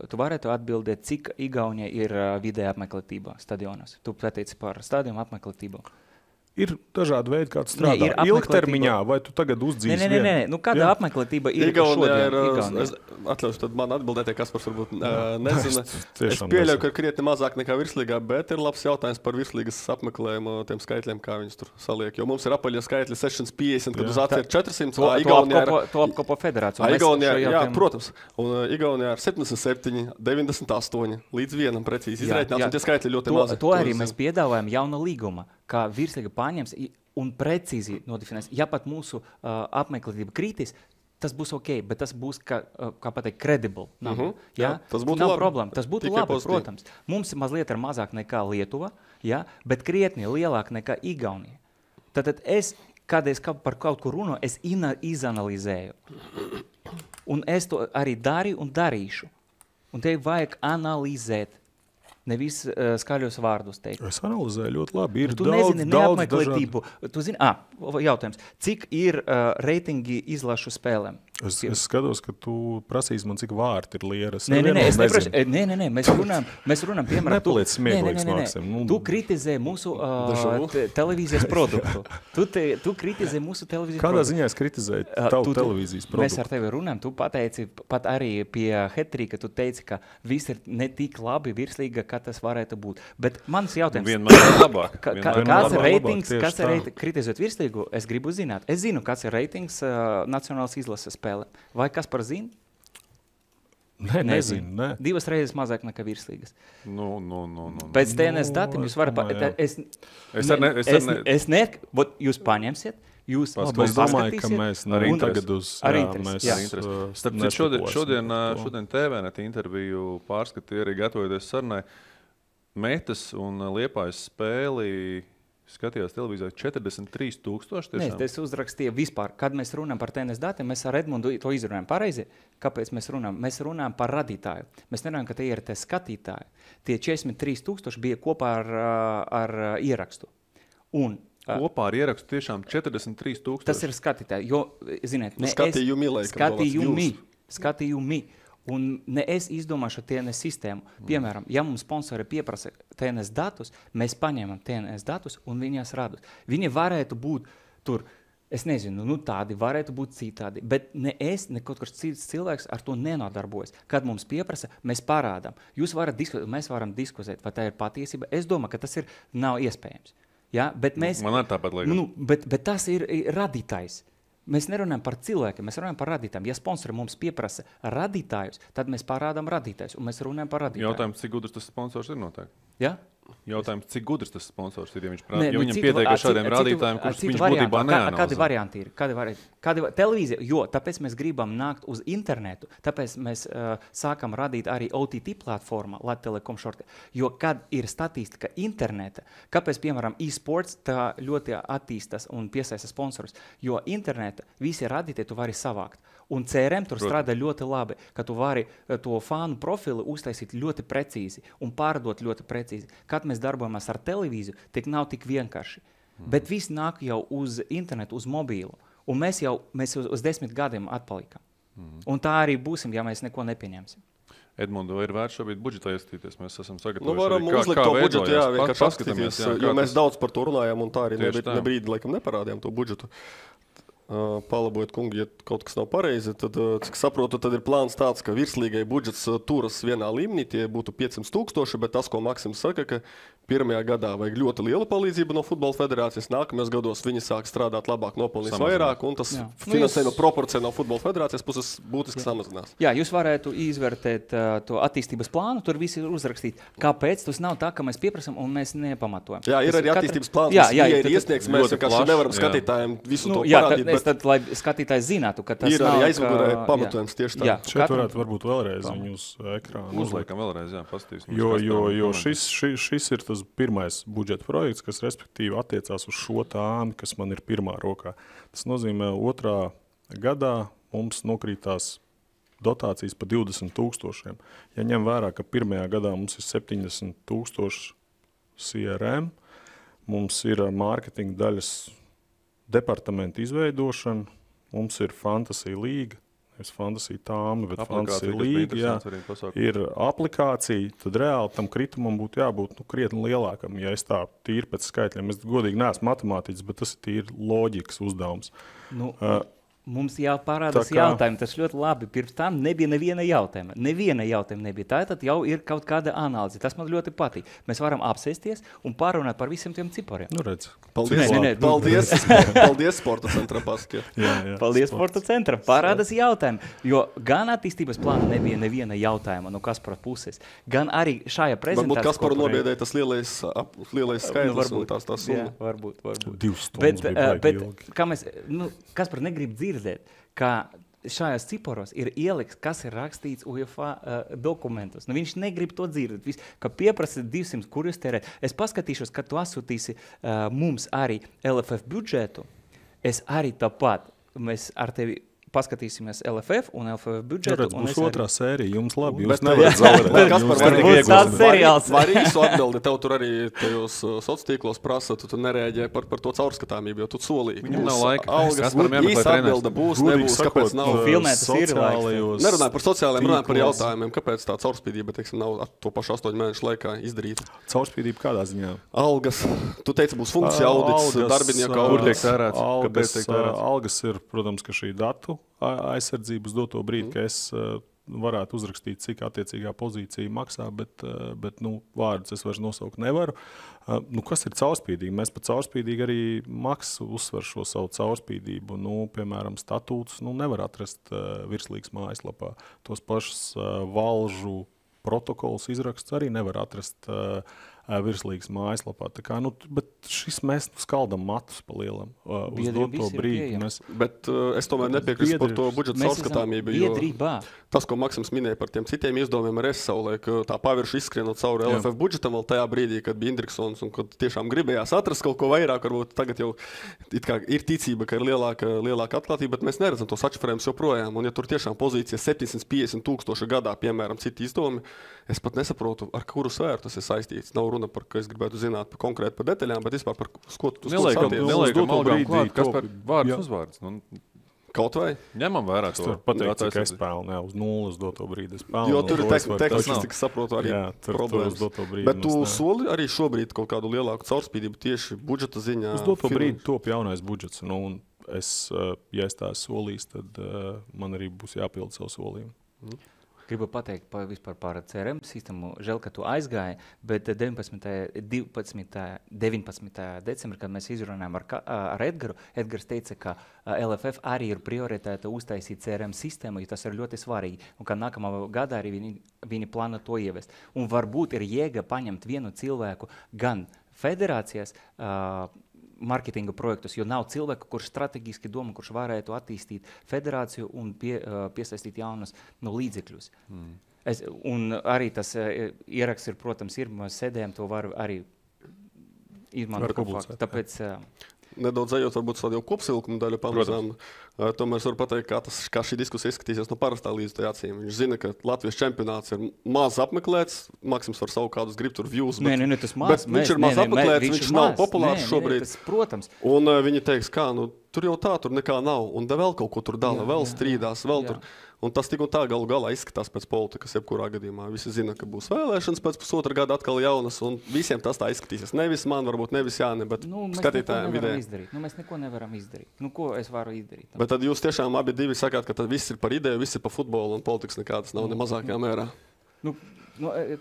Tu varētu atbildēt, cik Igaunija ir vidēja apmeklētība stadionos. Tu pateici par stadionu apmeklētību. Ir dažādi veidi, kā tu strādā. Ilgtermiņā, vai tu tagad uzdzīsi vienu? Nē. Kāda apmeklētība ir šodien? Atļaušu tad man atbildēt, ja Kaspars varbūt nezina. Es pieļauju, ka ir krietni mazāk nekā virslīgā, bet ir labs jautājums par virslīgas apmeklējumu tiem skaitļiem, kā viņus tur saliek. Jo mums ir apaļie skaitļi 650, kad uz atver 400. To apkopo federāciju. Jā, protams. Un Igaunijā ir 77, 98 līdz vienam precīzi izreitināts, un tie skaitļi ļoti mazi. To arī mēs piedāvājam jauna līguma, kā virslīga pārņems un precīzi nodefinēs. Ja pat mūsu apmeklētība krītīs, tas būs ok, bet tas būs, kā pateikt, credible. Tas būtu nav labi. Problēma. Tas būtu Tikai labi, pozitīvi. protams. Mums mazliet ir mazāk nekā Lietuva, bet krietni lielāk nekā Igaunija. Tātad kad es par kaut ko runāju, es izanalizēju. Un es to arī darīju un darīšu. Un te vajag analizēt. Nevis skaļos vārdus teikt. Es analizēju ļoti labi. Ir tu daudz, nezini daudz neapmeklētību. Tu zini, jautājums. Cik ir reitingi izlašu spēlēm? Es skatos, ka tu prasīsi man, cik vārti ir lieras. Nē, es neprasu. Nē, mēs runājam, piemēram, Nepaliec smieklīgs, Maksim. Tu kritizē mūsu televīzijas produktu. Tu kritizē mūsu televīzijas Kādā produktu. ziņā es kritizēju tavu televīzijas produktu? Mēs ar tevi runājam, tu pateici, pat arī pie Hetrika, tu teici, ka viss ir ne tik labi virslīga, kā tas varētu būt. Bet mans jautājums. Vienmēr ir labāk. Kāds ir reitings, kritizēt virslīgu? Es gribu zināt. Es zinu, kāds ir reitings nacionālas izlases spēle. Vai kas par zinu? Nezinu. 2 reizes mazāk nekā virslīgas. Pēc TNS datiem jūs varat... Jūs paņemsiet, jūs es domāju, ka mēs tagad uz... Šodien TVNet interviju pārskatīja arī gatavoties sarunai. Metas un Liepājas spēli skatījās televīzijā 43,000. Nē, es uzrakstīju vispār. Kad mēs runājam par TNS datiem, mēs ar Edmundu to izrunājam pareizi. Kāpēc mēs runājam? Mēs runājam par radītāju. Mēs nerunājam, ka tie ir tie skatītāji. Tie 43,000 bija kopā ar ierakstu. Un kopā ar ierakstu tiešām 43,000. Tas ir skatītāji, jo, ziniet, skatījumi. Un ne es izdomāšu TNS sistēmu. Piemēram, ja mums sponsori pieprasa TNS datus, mēs paņemam TNS datus un viņas radus. Viņi varētu būt tur, es nezinu, tādi varētu būt citādi, bet ne es, ne kaut kāds cits cilvēks ar to nenodarbojas. Kad mums pieprasa, mēs parādām. Jūs varat diskutēt, mēs varam diskutēt, vai tā ir patiesība. Es domāju, ka tas nav iespējams. Ja? Bet Man ar tāpat liekas. Bet tas ir radītājs. Mēs nerunājam par cilvēkiem, mēs runājam par radītājiem. Ja sponsori mums pieprasa radītājus, tad mēs parādām radītājus, un mēs runājam par radītājiem. Jautājums, cik gudrs tas sponsors ir noteikti? Ja? Jautājums, cik gudrs tas sponsors ir, ja viņam pietiek ar šādiem rādītājiem, kurus viņš būtībā neanalizē. Kādi varianti ir? Televīzija, jo tāpēc mēs gribam nākt uz internetu, tāpēc mēs sākam radīt arī OTT platformā, Latvijas Telekom šortē. Jo kad ir statistika interneta, kāpēc, piemēram, e-sports tā ļoti attīstas un piesaista sponsorus, jo interneta visi radītāji tu vari savākt. Un CRM tur strādā ļoti labi, ka tu vari to fanu profilu uztaisīt ļoti precīzi un pārdot ļoti precīzi. Kad mēs darbojamies ar televīziju, tik nav tik vienkārši. Bet viss nāk jau uz internetu, uz mobīlu. Un mēs uz 10 gadiem atpalikam. Un tā arī būsim, ja mēs neko nepieņemsim. Edmundu, vai ir vērts šobrīd budžetā ieskatīties? Mēs esam sagatavojuši. Varam uzlikt to budžetu, vienkārši paskatīties, jo mēs daudz par to runājam un tā arī nebrīdi laikam neparādījām to budžetu. Palabojiet, kungi, ja kaut kas nav pareizi, tad, cik saprotu, tad ir plāns tāds, ka virslīgai budžets turas vienā līmenī, tie būtu 500,000, bet tas, ko Maksims saka, ka pirmajā gadā vajag ļoti liela palīdzība no futbola federācijas, nākamajos gados viņi sāk strādāt labāk, nopelnīs vairāk, un tas finansējuma proporcija no futbola federācijas puses būtiski samazinās. Jā, jūs varētu izvērtēt to attīstības plānu, tur visi ir uzrakstīt, kāpēc tas nav tā, ka mēs pieprasam un mēs nepamatojam. Jā, ir arī attīstības plāns, ir iesniegts, mēs vienkārši nevaram skatītājiem visu to parādīt. Tad, lai skatītājs zinātu, ka tas ir arī aizmugurē pamatojums tieši tā. Šeit varētu varbūt vēlreiz viņu uz ekrānu. Uzliekam vēlreiz, jā, paskatīsim. Jo šis ir tas pirmais budžeta projekts, kas respektīvi attiecās uz šo tāmi, kas man ir pirmā rokā. Tas nozīmē, otrā gadā mums nokrītās dotācijas pa 20,000. Ja ņem vērā, ka pirmajā gadā mums ir 70,000 CRM, mums ir mārketinga daļas departamenta izveidošana, mums ir Fantasy līga, nevis Fantasy tāma, bet Fantasy līga, jā, ir aplikācija, tad reāli tam kritumam būtu jābūt krietni lielākam. Ja es tā tīri pēc skaitļiem, es godīgi neesmu matemātiķis, bet tas ir tīri loģikas uzdevums. Mums jāparādās jautājumi, tas ļoti labi. Pirms tam nebija neviena jautājuma. Neviena jautājuma nebija. Tātad jau ir kaut kāda analīze. Tas man ļoti patīk. Mēs varam apsēsties un pārunāt par visiem tiem cipariem. Redz. Paldies, paldies Sporta centra paskie. Paldies Sporta centra. Parādās jautājumi. Jo gan attīstības plāna nebija neviena jautājuma no Kaspara puses, gan arī šajā prezentācijā. Varbūt Kasparu nobiedēja tas lielais skaidrs un tās summa. Varbūt. 2 stundas bija ilgi. Kaspar negrib dzirdēt, ka šajās ciparos ir ielikts, kas ir rakstīts UEFA dokumentos. Viņš negrib to dzirdēt. Ka pieprasa 200, kur jūs tērēt. Es paskatīšos, kad tu asūtīsi mums arī LFF budžetu. Es arī tāpat. Mēs ar tevi paskatīsimies LFF un LFF budžetu. Būs otrā sērija, jums labi, jūs nevarat zaudēt. Var īsu atbildi, tev tur arī tajos sociālos prasa, tu nereaģē par to caurskatāmību, jo tu solīji. Viņam nav laika. Īsa atbilde būs, nebūs, kāpēc nav. Filmētas ir laiks. Nerunāju par sociālajiem, runāju par jautājumiem, kāpēc tā caurspīdība, nav to pašu 8 mēnešu laikā izdarīta. Caurspīdība kādā ziņā? Algas. Tu teici, būs funkcija audits, darbinieku audits. Algas ir, protams, ka šī datu aizsardzības doto brīdi, ka es varētu uzrakstīt, cik attiecīgā pozīcija maksā, bet vārdus es vairs nosaukt nevaru. Kas ir caurspīdīgi? Mēs par caurspīdīgi arī maksu uzsver šo savu caurspīdību. Piemēram, statūtus nevar atrast virslīgas mājaslapā. Tos pašus valžu protokols izraksts arī nevar atrast virslīgas mājaslapā. Bet šis mēs skaldam matus pa lielam uz doto brīdi. Bet es tomēr nepiekrīstu par to budžeta caurskatāmību, jo tas, ko Maksims minēja par tiem citiem izdevumiem, ar savulaik tā pavirši izskrienot cauri LFF budžetam vēl tajā brīdī, kad bija Indriksons un kad tiešām gribējās atrast kaut ko vairāk, varbūt tagad jau ir ticība, ka ir lielāka atklātība, bet mēs neredzam tos atšifrējumus joprojām. Un ja tur tiešām pozīcija 750,000 gadā, piemēram, citi izdevumi, es pat nesaprotu, ar kuru sfēru tas ir saistīts. Nav runa par, ka es gribētu zināt konkrēti par detaļām, bet vispār par ko tu Neliekam algām klāt, kas par vārdus uzvārds. Kaut vai? Ņemam vērā to. Tur pateikt, cik es pelnu, uz 0 doto brīdi es pelnu. Jo tur ir teksts, cik saprotu, arī problēmas. Bet tu soli arī šobrīd kaut kādu lielāku caurspīdību tieši budžeta ziņā? Uz doto brīdi top jaunais budžets. Un ja es tā solīs, tad man arī būs jāpild savu solījumu. Gribu pateikt vispār par CRM sistēmu. Žēl, ka tu aizgāji, bet 19. decembrī, kad mēs izrunājām ar Edgaru, Edgars teica, ka LFF arī ir prioritāte uztaisīt CRM sistēmu, jo tas ir ļoti svarīgi. Un ka nākamā gadā arī viņi plāno to ievest. Un varbūt ir jēga paņemt vienu cilvēku gan federācijas marketinga projektus, jo nav cilvēku, kurš strateģiski domā, kurš varētu attīstīt federāciju un piesaistīt jaunus līdzekļus. Un arī tas ieraksts ir, protams, mēs sēdējam, to var arī izmantot. Tāpēc nedaudz ejot, varbūt vēl jau kopsilkumu daļu pamazām. Tomēr es varu pateikt, kā šī diskusija izskatīsies no parastā līdzekļa acīm. Viņš zina, ka Latvijas čempionāts ir maz apmeklēts. Maksims var savu kādus grib tur views, bet tas maz, viņš ir maz apmeklēts, viņš nav populārs šobrīd. Tas, protams. Un viņi teiks, kā, tur jau tā, tur nekā nav. Un vēl kaut ko tur dala, vēl strīdās, vēl tur. Un tas tik un tā galu galā izskatās pēc politikas, jebkurā gadījumā. Visi zina, ka būs vēlēšanas pēc pusotra gada atkal jaunas, un visiem tas tā izskatīsies. Nevis man, varbūt nevis Jāni, bet skatītājiem vidēji. Mēs neko nevaram izdarīt. Ko es varu izdarīt? Bet tad jūs tiešām abi divi sakāt, ka tad viss ir par ideju, viss ir par futbolu, un politikas nekādas nav ne mazākajā mērā.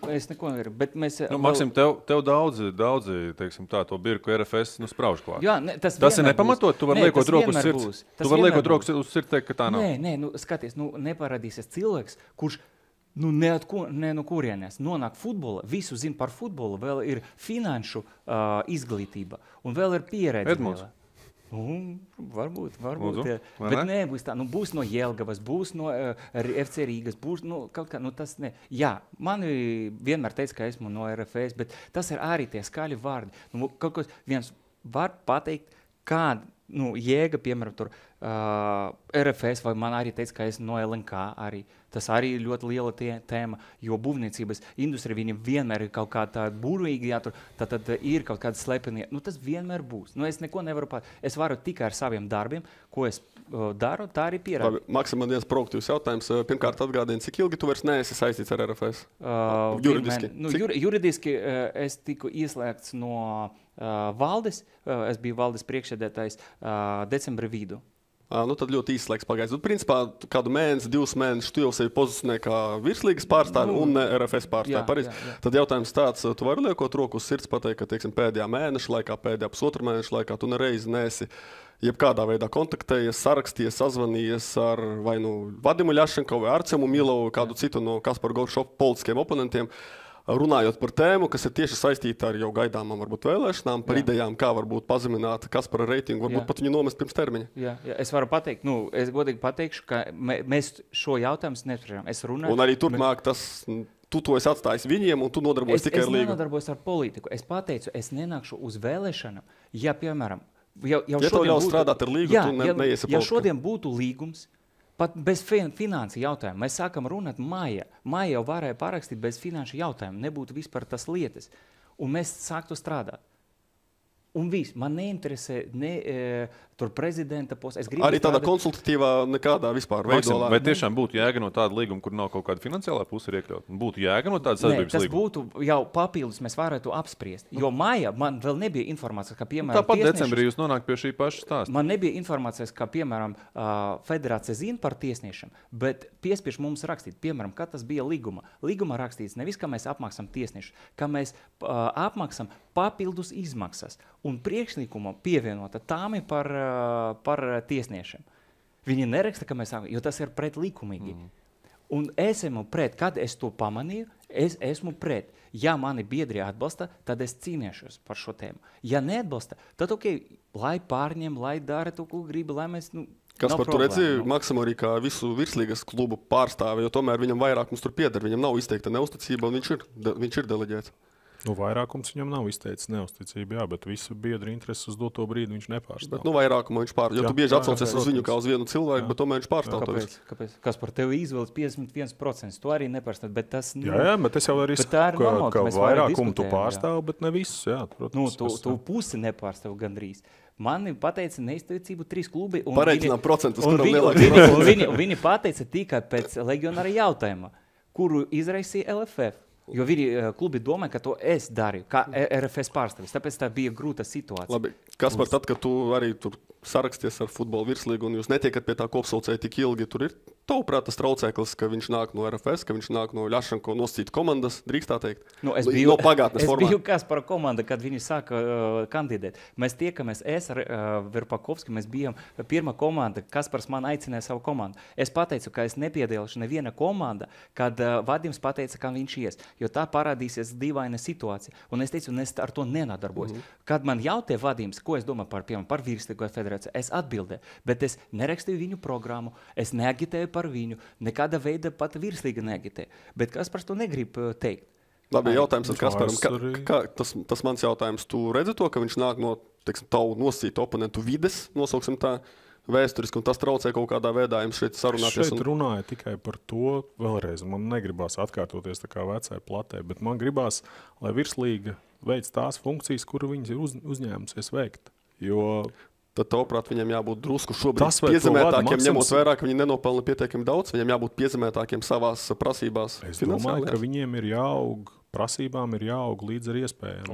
Es neko nevaru, bet mēs... Maksim, tev daudzi, teiksim tā, to birku RFS sprauž klāt. Jā, tas ir nepamatot, tu vari liekot rokas uz sirds. Tu vari liekot rokas uz sirds, teikt, ka tā nav. Nē, skaties, neparādīsies cilvēks, kurš no kurienes nonāk futbola, visu zina par futbolu, vēl ir finanšu izglītība un vēl ir pieredze. Edmunds. Varbūt. Jā. Bet nebūs tā. Būs no Jelgavas, būs no FC Rīgas, būs kaut kā, tas ne. Jā, mani vienmēr teica, ka esmu no RFS, bet tas ir arī tie skaļi vārdi. Kaut ko viens var pateikt, kāda jēga, piemēram, tur RFS, vai man arī teica, ka esmu no LNK arī. Tas arī ir ļoti liela tēma, jo būvniecības industrija viņam vienmēr ir kaut kā tā burvīgi, tad ir kaut kāda slepenie. Tas vienmēr būs. Es neko nevaru es varu tikai ar saviem darbiem, ko es daru, tā arī pierādu. Maksim, man viens proaktīvs jautājums. Pirmkārt atgādini, cik ilgi tu vairs neesi saistīts ar RFS? Juridiski? Juridiski es tiku ieslēgts no valdes. Es biju valdes priekšsēdētājs decembra vidu. Tad ļoti īsts laiks pagājis. Principā kādu mēnesi, 2 mēnešus tu jau sevi pozicionē kā virslīgas pārstāvi un RFS pārstāvi. Tad jautājums tāds, tu vari liekot roku uz sirds pateikt, ka teiksim, pēdējā mēneša laikā, pēdējā pusotra mēneša laikā tu nereizi neesi jebkādā veidā kontaktējies, sarakstījies, sazvanījies ar vai Vadimu Ļašenko vai Arcemu Milovu, kādu citu no Kaspara Goršova politiskiem oponentiem. Runājot par tēmu, kas ir tieši saistīta ar jau gaidāmām varbūt vēlēšanām, par idejām, kā varbūt pazemināt Kaspara reitingu, varbūt pat viņu nomest pirms termiņa. Jā, es varu pateikt, es godīgi pateikšu, ka mēs šo jautājumu nespriežam. Es runāju. Un arī turpmāk tu to esi atstājis viņiem, un tu nodarbojies tikai ar līgu. Es nenodarbojos ar politiku. Es pateicu, es nenākšu uz vēlēšanām, ja, piemēram, jau tev ļaus strādāt ar līgu, tu neiesi politikā. Ja šodien būtu līgums, pat bez finansu jautājumu. Mēs sākam runāt maijā. Maijā jau varēja parakstīt bez finanšu jautājumu. Nebūtu vispār tas lietas. Un mēs sāktu strādāt. Un viss. Man neinteresē tur prezidenta posts. Arī tādā konsultatīvā nekādā vispār veidolā. Vai tiešām būtu jēga no tāda līguma, kur nav kaut kāda finansiālā puse ir iekļaut? Būtu jēga no tāda sadarbības līguma? Tas būtu jau papildus, mēs varētu apspriest. Jo maijā man vēl nebija informācijas, ka, piemēram, tāpat decembrī jūs nonāk pie šī paša stāsta. Man nebija informācijas, ka, piemēram, federācija zina par tiesniešiem, bet piespiež mums rakstīt, piemēram, kad tas bija līguma. Līguma rakstīts nevis, ka mēs apmaksam tiesniešus, ka mēs apmaksam papildus izmaksas. Un priekšlikuma pievienota tām ir par tiesniešiem. Viņi neraksta, ka mēs sākam, jo tas ir pretlikumīgi. Un es esmu pret, kad es to pamanīju, es esmu pret. Ja mani biedri atbalsta, tad es cīnīšos par šo tēmu. Ja neatbalsta, tad lai pārņem, lai dara to, ko grib, lai mēs... Kas par to redzi, Maksim arī kā visu virslīgas klubu pārstāvi, jo tomēr viņam vairāk mums tur pieder, viņam nav izteikta neusticība, un viņš ir deleģēts. Vairākums viņam nav izteicis neusticību, jā, bet visu biedru intereses uz doto brīdi viņš nepārstāv. Bet vairākumu viņš pārstāv. Jo tu bieži atsaucies uz viņu kā uz vienu cilvēku, bet tomēr viņš pārstāv. Kāpēc? Kas par tevi izvēlas 51%? Tu arī nepārstāv, bet tas... Jā, bet es jau arī saku, ka vairākumu tu pārstāv, bet ne visus, jā. Protams, tu pusi nepārstāv gandrīz. Mani pateica neizteicību 3 klubi. Pareiķinām procentus, kuram lielāks. Viņi pateica tikai pēc legionāra jautājuma, kuru izraisīja LFF. Jo viņi klubi domā, ka to es darīju, kā RFS pārstāvis. Tāpēc tā bija grūta situācija. Labi, Kaspar, tad, kad tu arī tur saraksties ar futbola virslīgu un jūs netiekat pie tā kopsaucēja tik ilgi, tur ir tavuprāt tas traucēklis, ka viņš nāk no RFS, ka viņš nāk no Ļašenko nosacīt komandas, drīkst tā teikt? Es biju Kaspara komanda, kad viņi sāka kandidēt. Mēs tiekamies, es ar Verpakovski, mēs bijām pirmā komanda, Kaspars man aicināja savu komandu. Es pateicu, ka es nepiedalīšu neviena komanda, kad Vadims pateica, ka viņš ies, jo tā parādīsies dīvaina situācija. Un es teicu, es ar to nenodarbojos. Kad man jautāja Vadims, ko es domāju par virslīgo federāciju, es atbildēju, bet es nerakstīju viņu programmu, es neagitēju par viņu, nekāda veida pat virslīga neagitēju. Bet Kaspars to negrib teikt. Labi, jautājums ar Kasparam. Tas mans jautājums, tu redzi to, ka viņš nāk no, teiksim, tavu nosacītu oponentu vides, nosauksim tā, vēsturiski, un tas traucē kaut kādā veidā jums šeit sarunāties. Šeit runāja tikai par to vēlreiz. Man negribās atkārtoties tā kā vecai platē, bet man gribās, lai virslīga veic tās funkcijas, kuru viņas ir uzņēmusies veikt. Jo tad, tavuprāt, viņiem jābūt drusku šobrīd piezemētākiem, ņemot vērā, ka viņi nenopelna pietiekami daudz, viņiem jābūt piezemētākiem savās prasībās. Es domāju, ka viņiem ir jāaug, prasībām ir jāaug līdz ar iespējām.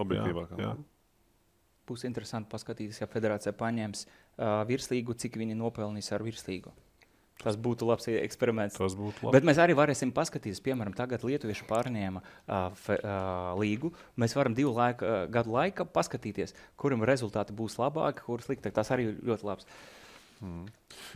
Objektīvāk. Jā. Būs interesanti paskatīties, ja federācija paņems virslīgu, cik viņi nopelnīs ar virslīgu. Tas būtu labs eksperiments. Tas būtu labi. Bet mēs arī varēsim paskatīties, piemēram, tagad lietuvieši pārņēma līgu. Mēs varam 2 gadu laika paskatīties, kuram rezultāti būs labāki, kur sliktāk. Tas arī ļoti labs.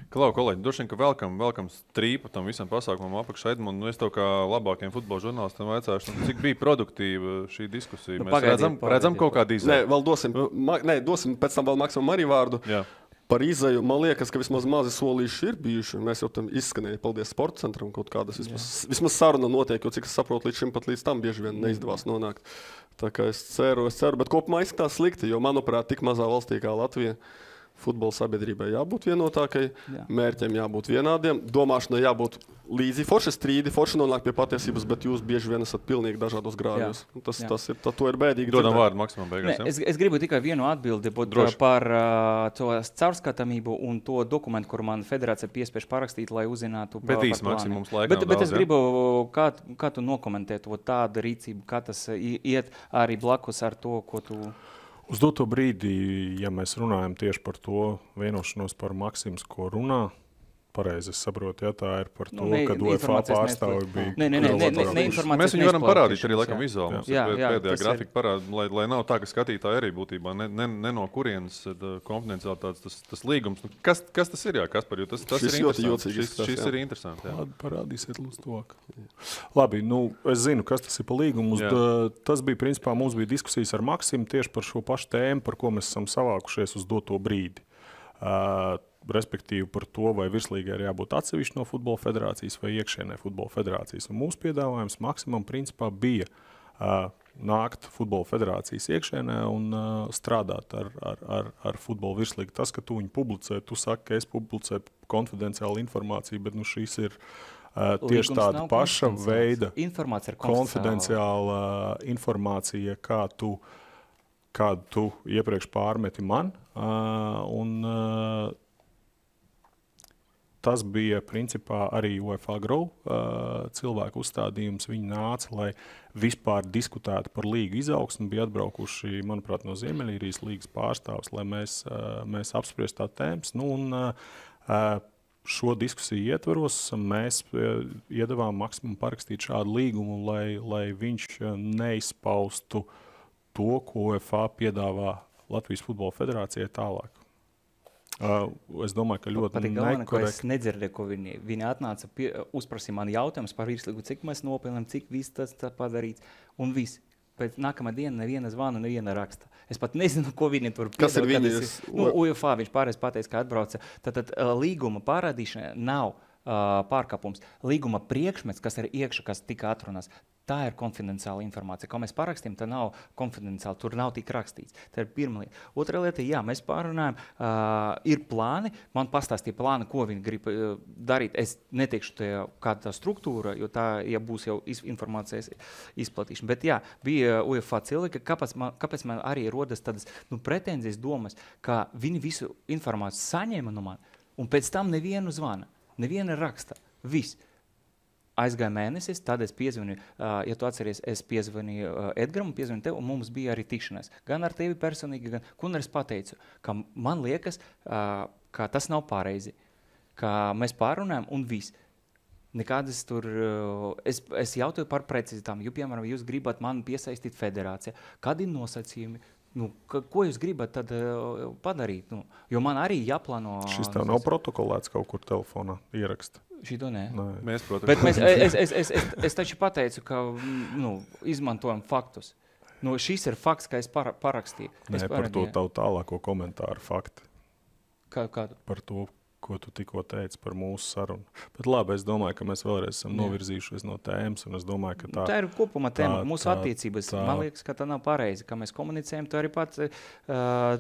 Klau, kolēģi, droši vien, ka velkam strīpu tam visam pasākumam apakšā. Edmund, es tev kā labākiem futbola žurnālistam vaicāšu, cik bija produktīva šī diskusija. Mēs redzam kaut kādu izēju. Nē, vēl dosim pēc tam vēl Maksimam arī vārdu. Jā. Par izēju, man liekas, ka vismaz mazi solīši ir bijuši. Mēs jau tam izskanēja, paldies sporta centram, kaut kādas vismaz saruna notiek, jo cik es saprotu, līdz tam bieži vien neizdevās nonākt. Tā kā es ceru, bet kopumā izskatās slikti, jo, manuprāt, tik mazā valstī kā Latvija futbola sabiedrībai jābūt vienotākai, mērķiem jābūt vienādiem, domāšanai jābūt līdzi forši strīdi, forši nonāk pie patiesības, bet jūs bieži vien esat pilnīgi dažādos grāvjos. To ir bēdīgi. Dodam vārdu Maksimam beigās. Es gribu tikai vienu atbildi par to caurskatāmību un to dokumentu, kur man federācija piespiež parakstīt, lai uzzinātu par plānu. Bet es gribu, kā tu nokomentēt tādu rīcību, kā tas iet arī blakus ar to, ko tu... Uz doto brīdī, ja mēs runājam tieši par to vienošanos par Maksims, ko runā, pareizi es saprotu, ja tā ir par to, ka UEFA pārstāvi bija... Mēs viņu varam parādīt arī laikam vizuāli. Mums ir pēdējā grafika parāda, lai nav tā, ka skatītāji arī būtībā ne no kurienes konfidenciālitātes tas līgums. Kas tas ir, Kaspar? Jo tas ir interesanti. Šis ir interesanti. Parādīsiet lūdzu tuvāk. Labi, es zinu, kas tas ir par līgumu. Tas bija, principā, mums bija diskusijas ar Maksimu tieši par šo pašu tēmu, par ko mēs esam savākušies uz doto brīdi. Respektīvi par to, vai virslīgai ir jābūt atsevišķi no futbola federācijas vai iekšēnē futbola federācijas. Un mūsu piedāvājums Maksimam principā bija nākt futbola federācijas iekšēnē un strādāt ar futbola virslīgu. Tas, ka tu viņu publicē, tu saki, ka es publicēju konfidenciālu informāciju, bet šīs ir tieši tāda paša veida konfidenciāla informācija, kādu tu iepriekš pārmeti man. Tas bija principā arī UEFA Grow cilvēku uzstādījums. Viņi nāca, lai vispār diskutētu par līgu izaugsmu. Bija atbraukuši, manuprāt, no Ziemeļīrijas līgas pārstāvs, lai mēs apspriestu tā tēmas. Šo diskusiju ietvaros mēs iedavām Maksimam parakstīt šādu līgumu, lai viņš neizpaustu to, ko UEFA piedāvā Latvijas Futbola Federācijai tālāk. Es domāju, ka ļoti nekorekti. Es nedzirdēju, ko viņi atnāca, uzprasīja man jautājumus par virslīgu, cik mēs nopelnām, cik viss tas padarīts un viss. Pēc nākamā diena neviena zvana, neviena raksta. Es pat nezinu, ko viņi tur piedāvā. Kas ir viņas? UEFA viņš pārējais pateica, ka atbrauca. Tad līguma parādīšana nav pārkāpums. Līguma priekšmets, kas ir iekšā, kas tika atrunās, tā ir konfidenciāla informācija. Ko mēs parakstījām, tā nav konfidenciāla, tur nav tik rakstīts. Tā ir pirmā lieta. Otra lieta, mēs pārunājam, ir plāni, man pastāstīja plāni, ko viņi grib darīt. Es neteikšu, kāda tā struktūra, jo tā, ja būs jau informācijas izplatīšana. Bet bija UEFA cilvēki, kāpēc man arī rodas tādas pretenzijas domas, ka viņi visu informāciju saņēma no man, un pēc tam nevienu zvana, neviena raksta, viss. Aizgāja mēnesis, tad es piezvanīju, ja tu atceries, es piezvanīju Edgaram, piezvanīju tev, un mums bija arī tikšanās. Gan ar tevi personīgi, un es pateicu, ka man liekas, ka tas nav pareizi, ka mēs pārunājam un viss. Nekādas tur, es jautāju par precizitām, jo, piemēram, jūs gribat man piesaistīt federācijā, kādi nosacījumi, ko jūs gribat tad padarīt? Jo man arī jāplāno... Šis tev nav protokolēts kaut kur telefonā ieraksta. Šito nē. Mēs, protams. Bet es taču pateicu, ka izmantojam faktus. Šis ir fakts, ka es parakstīju. Par to tavu tālāko komentāru fakti. Kādu? Par to, ko tu tikko teici par mūsu sarunu. Bet labi, es domāju, ka mēs vēlreiz esam novirzījušies no tēmas, un es domāju, ka tā ir kopumā tēma. Mūsu attiecības, man liekas, ka tā nav pareizi. Kā mēs komunicējam, tu arī pats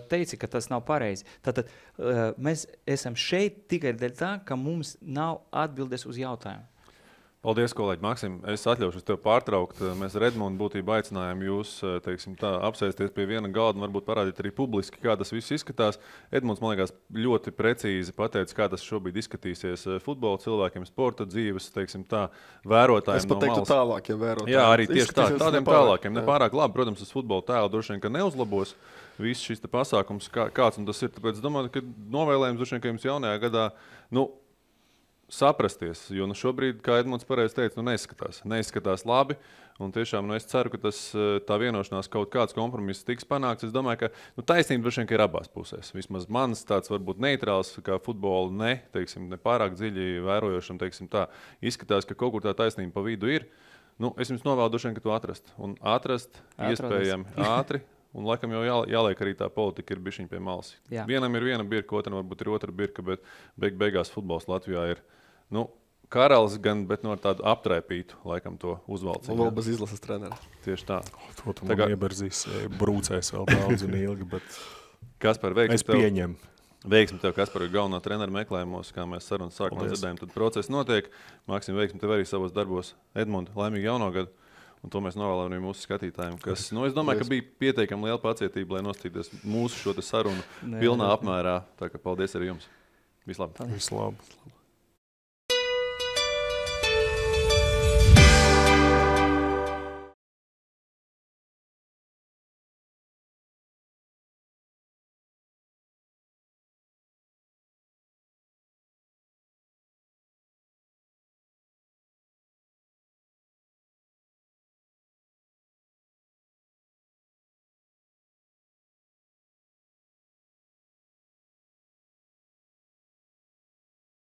teici, ka tas nav pareizi. Tātad mēs esam šeit tikai dēļ tā, ka mums nav atbildes uz jautājumu. Paldies, kolēģi Maksim. Es atļaušos tev pārtraukt. Mēs ar Edmundu būtībā aicinājām jūs, teiksim tā, apsēsties pie viena galda un varbūt parādīt arī publiski, kā tas viss izskatās. Edmunds, man liekas, ļoti precīzi pateica, kā tas šobrīd izskatīsies futbola cilvēkiem, sporta dzīves, teiksim tā, vērotājiem Es pat teiktu tālākiem vērotājiem. Jā, arī tieši tā, tādiem tālākiem. Nepārāk labi, protams, uz futbola tēlu droši vien, ka neuzlabos viss šis pasākums, kāds un tas ir. Tāpēc es domāju, ka novēlējums droši vien, ka jums jaunajā gadā, saprasties, jo šobrīd, kā Edmunds pareizi teica, neizskatās labi. Un tiešām es ceru, ka tā vienošanās kaut kāds kompromiss tiks panākts. Es domāju, ka taisnība droši vien ir abās pusēs. Vismaz mans tāds varbūt neitrāls, kā futbolu ne pārāk dziļi vērojošam, izskatās, ka kaut kur tā taisnība pa vidu ir. Es jums novēlu droši vien, ka to atrast. Un atrast iespējami ātri. Un laikam jau jāliek arī tā politika ir bišķiņ pie malas. Jā. Vienam ir viena birka, otram varbūt ir otra birka, bet beigās futbols Latvijā ir karalis gan, bet no tādu aptraipītu laikam to uzvalcību. Un vēl bez izlases trenera. Tieši tā. To tu man ieberzīs, brūcēs vēl daudz un ilgi, bet Kaspar, es pieņemu. Veiksmi tev, Kaspar, ir galvenā trenera meklējumos, kā mēs sarunas sākumā dzirdējām, tad process notiek. Maksim, veiksmi tev arī savos darbos. Edmund, laimīgi jauno gadu. Un to mēs novēlam arī mūsu skatītājiem, kas, es domāju, ka bija pietiekami liela pacietība, lai nostīties mūsu šo sarunu pilnā apmērā. Tā kā paldies arī jums. Vislabāk. Vislabāk.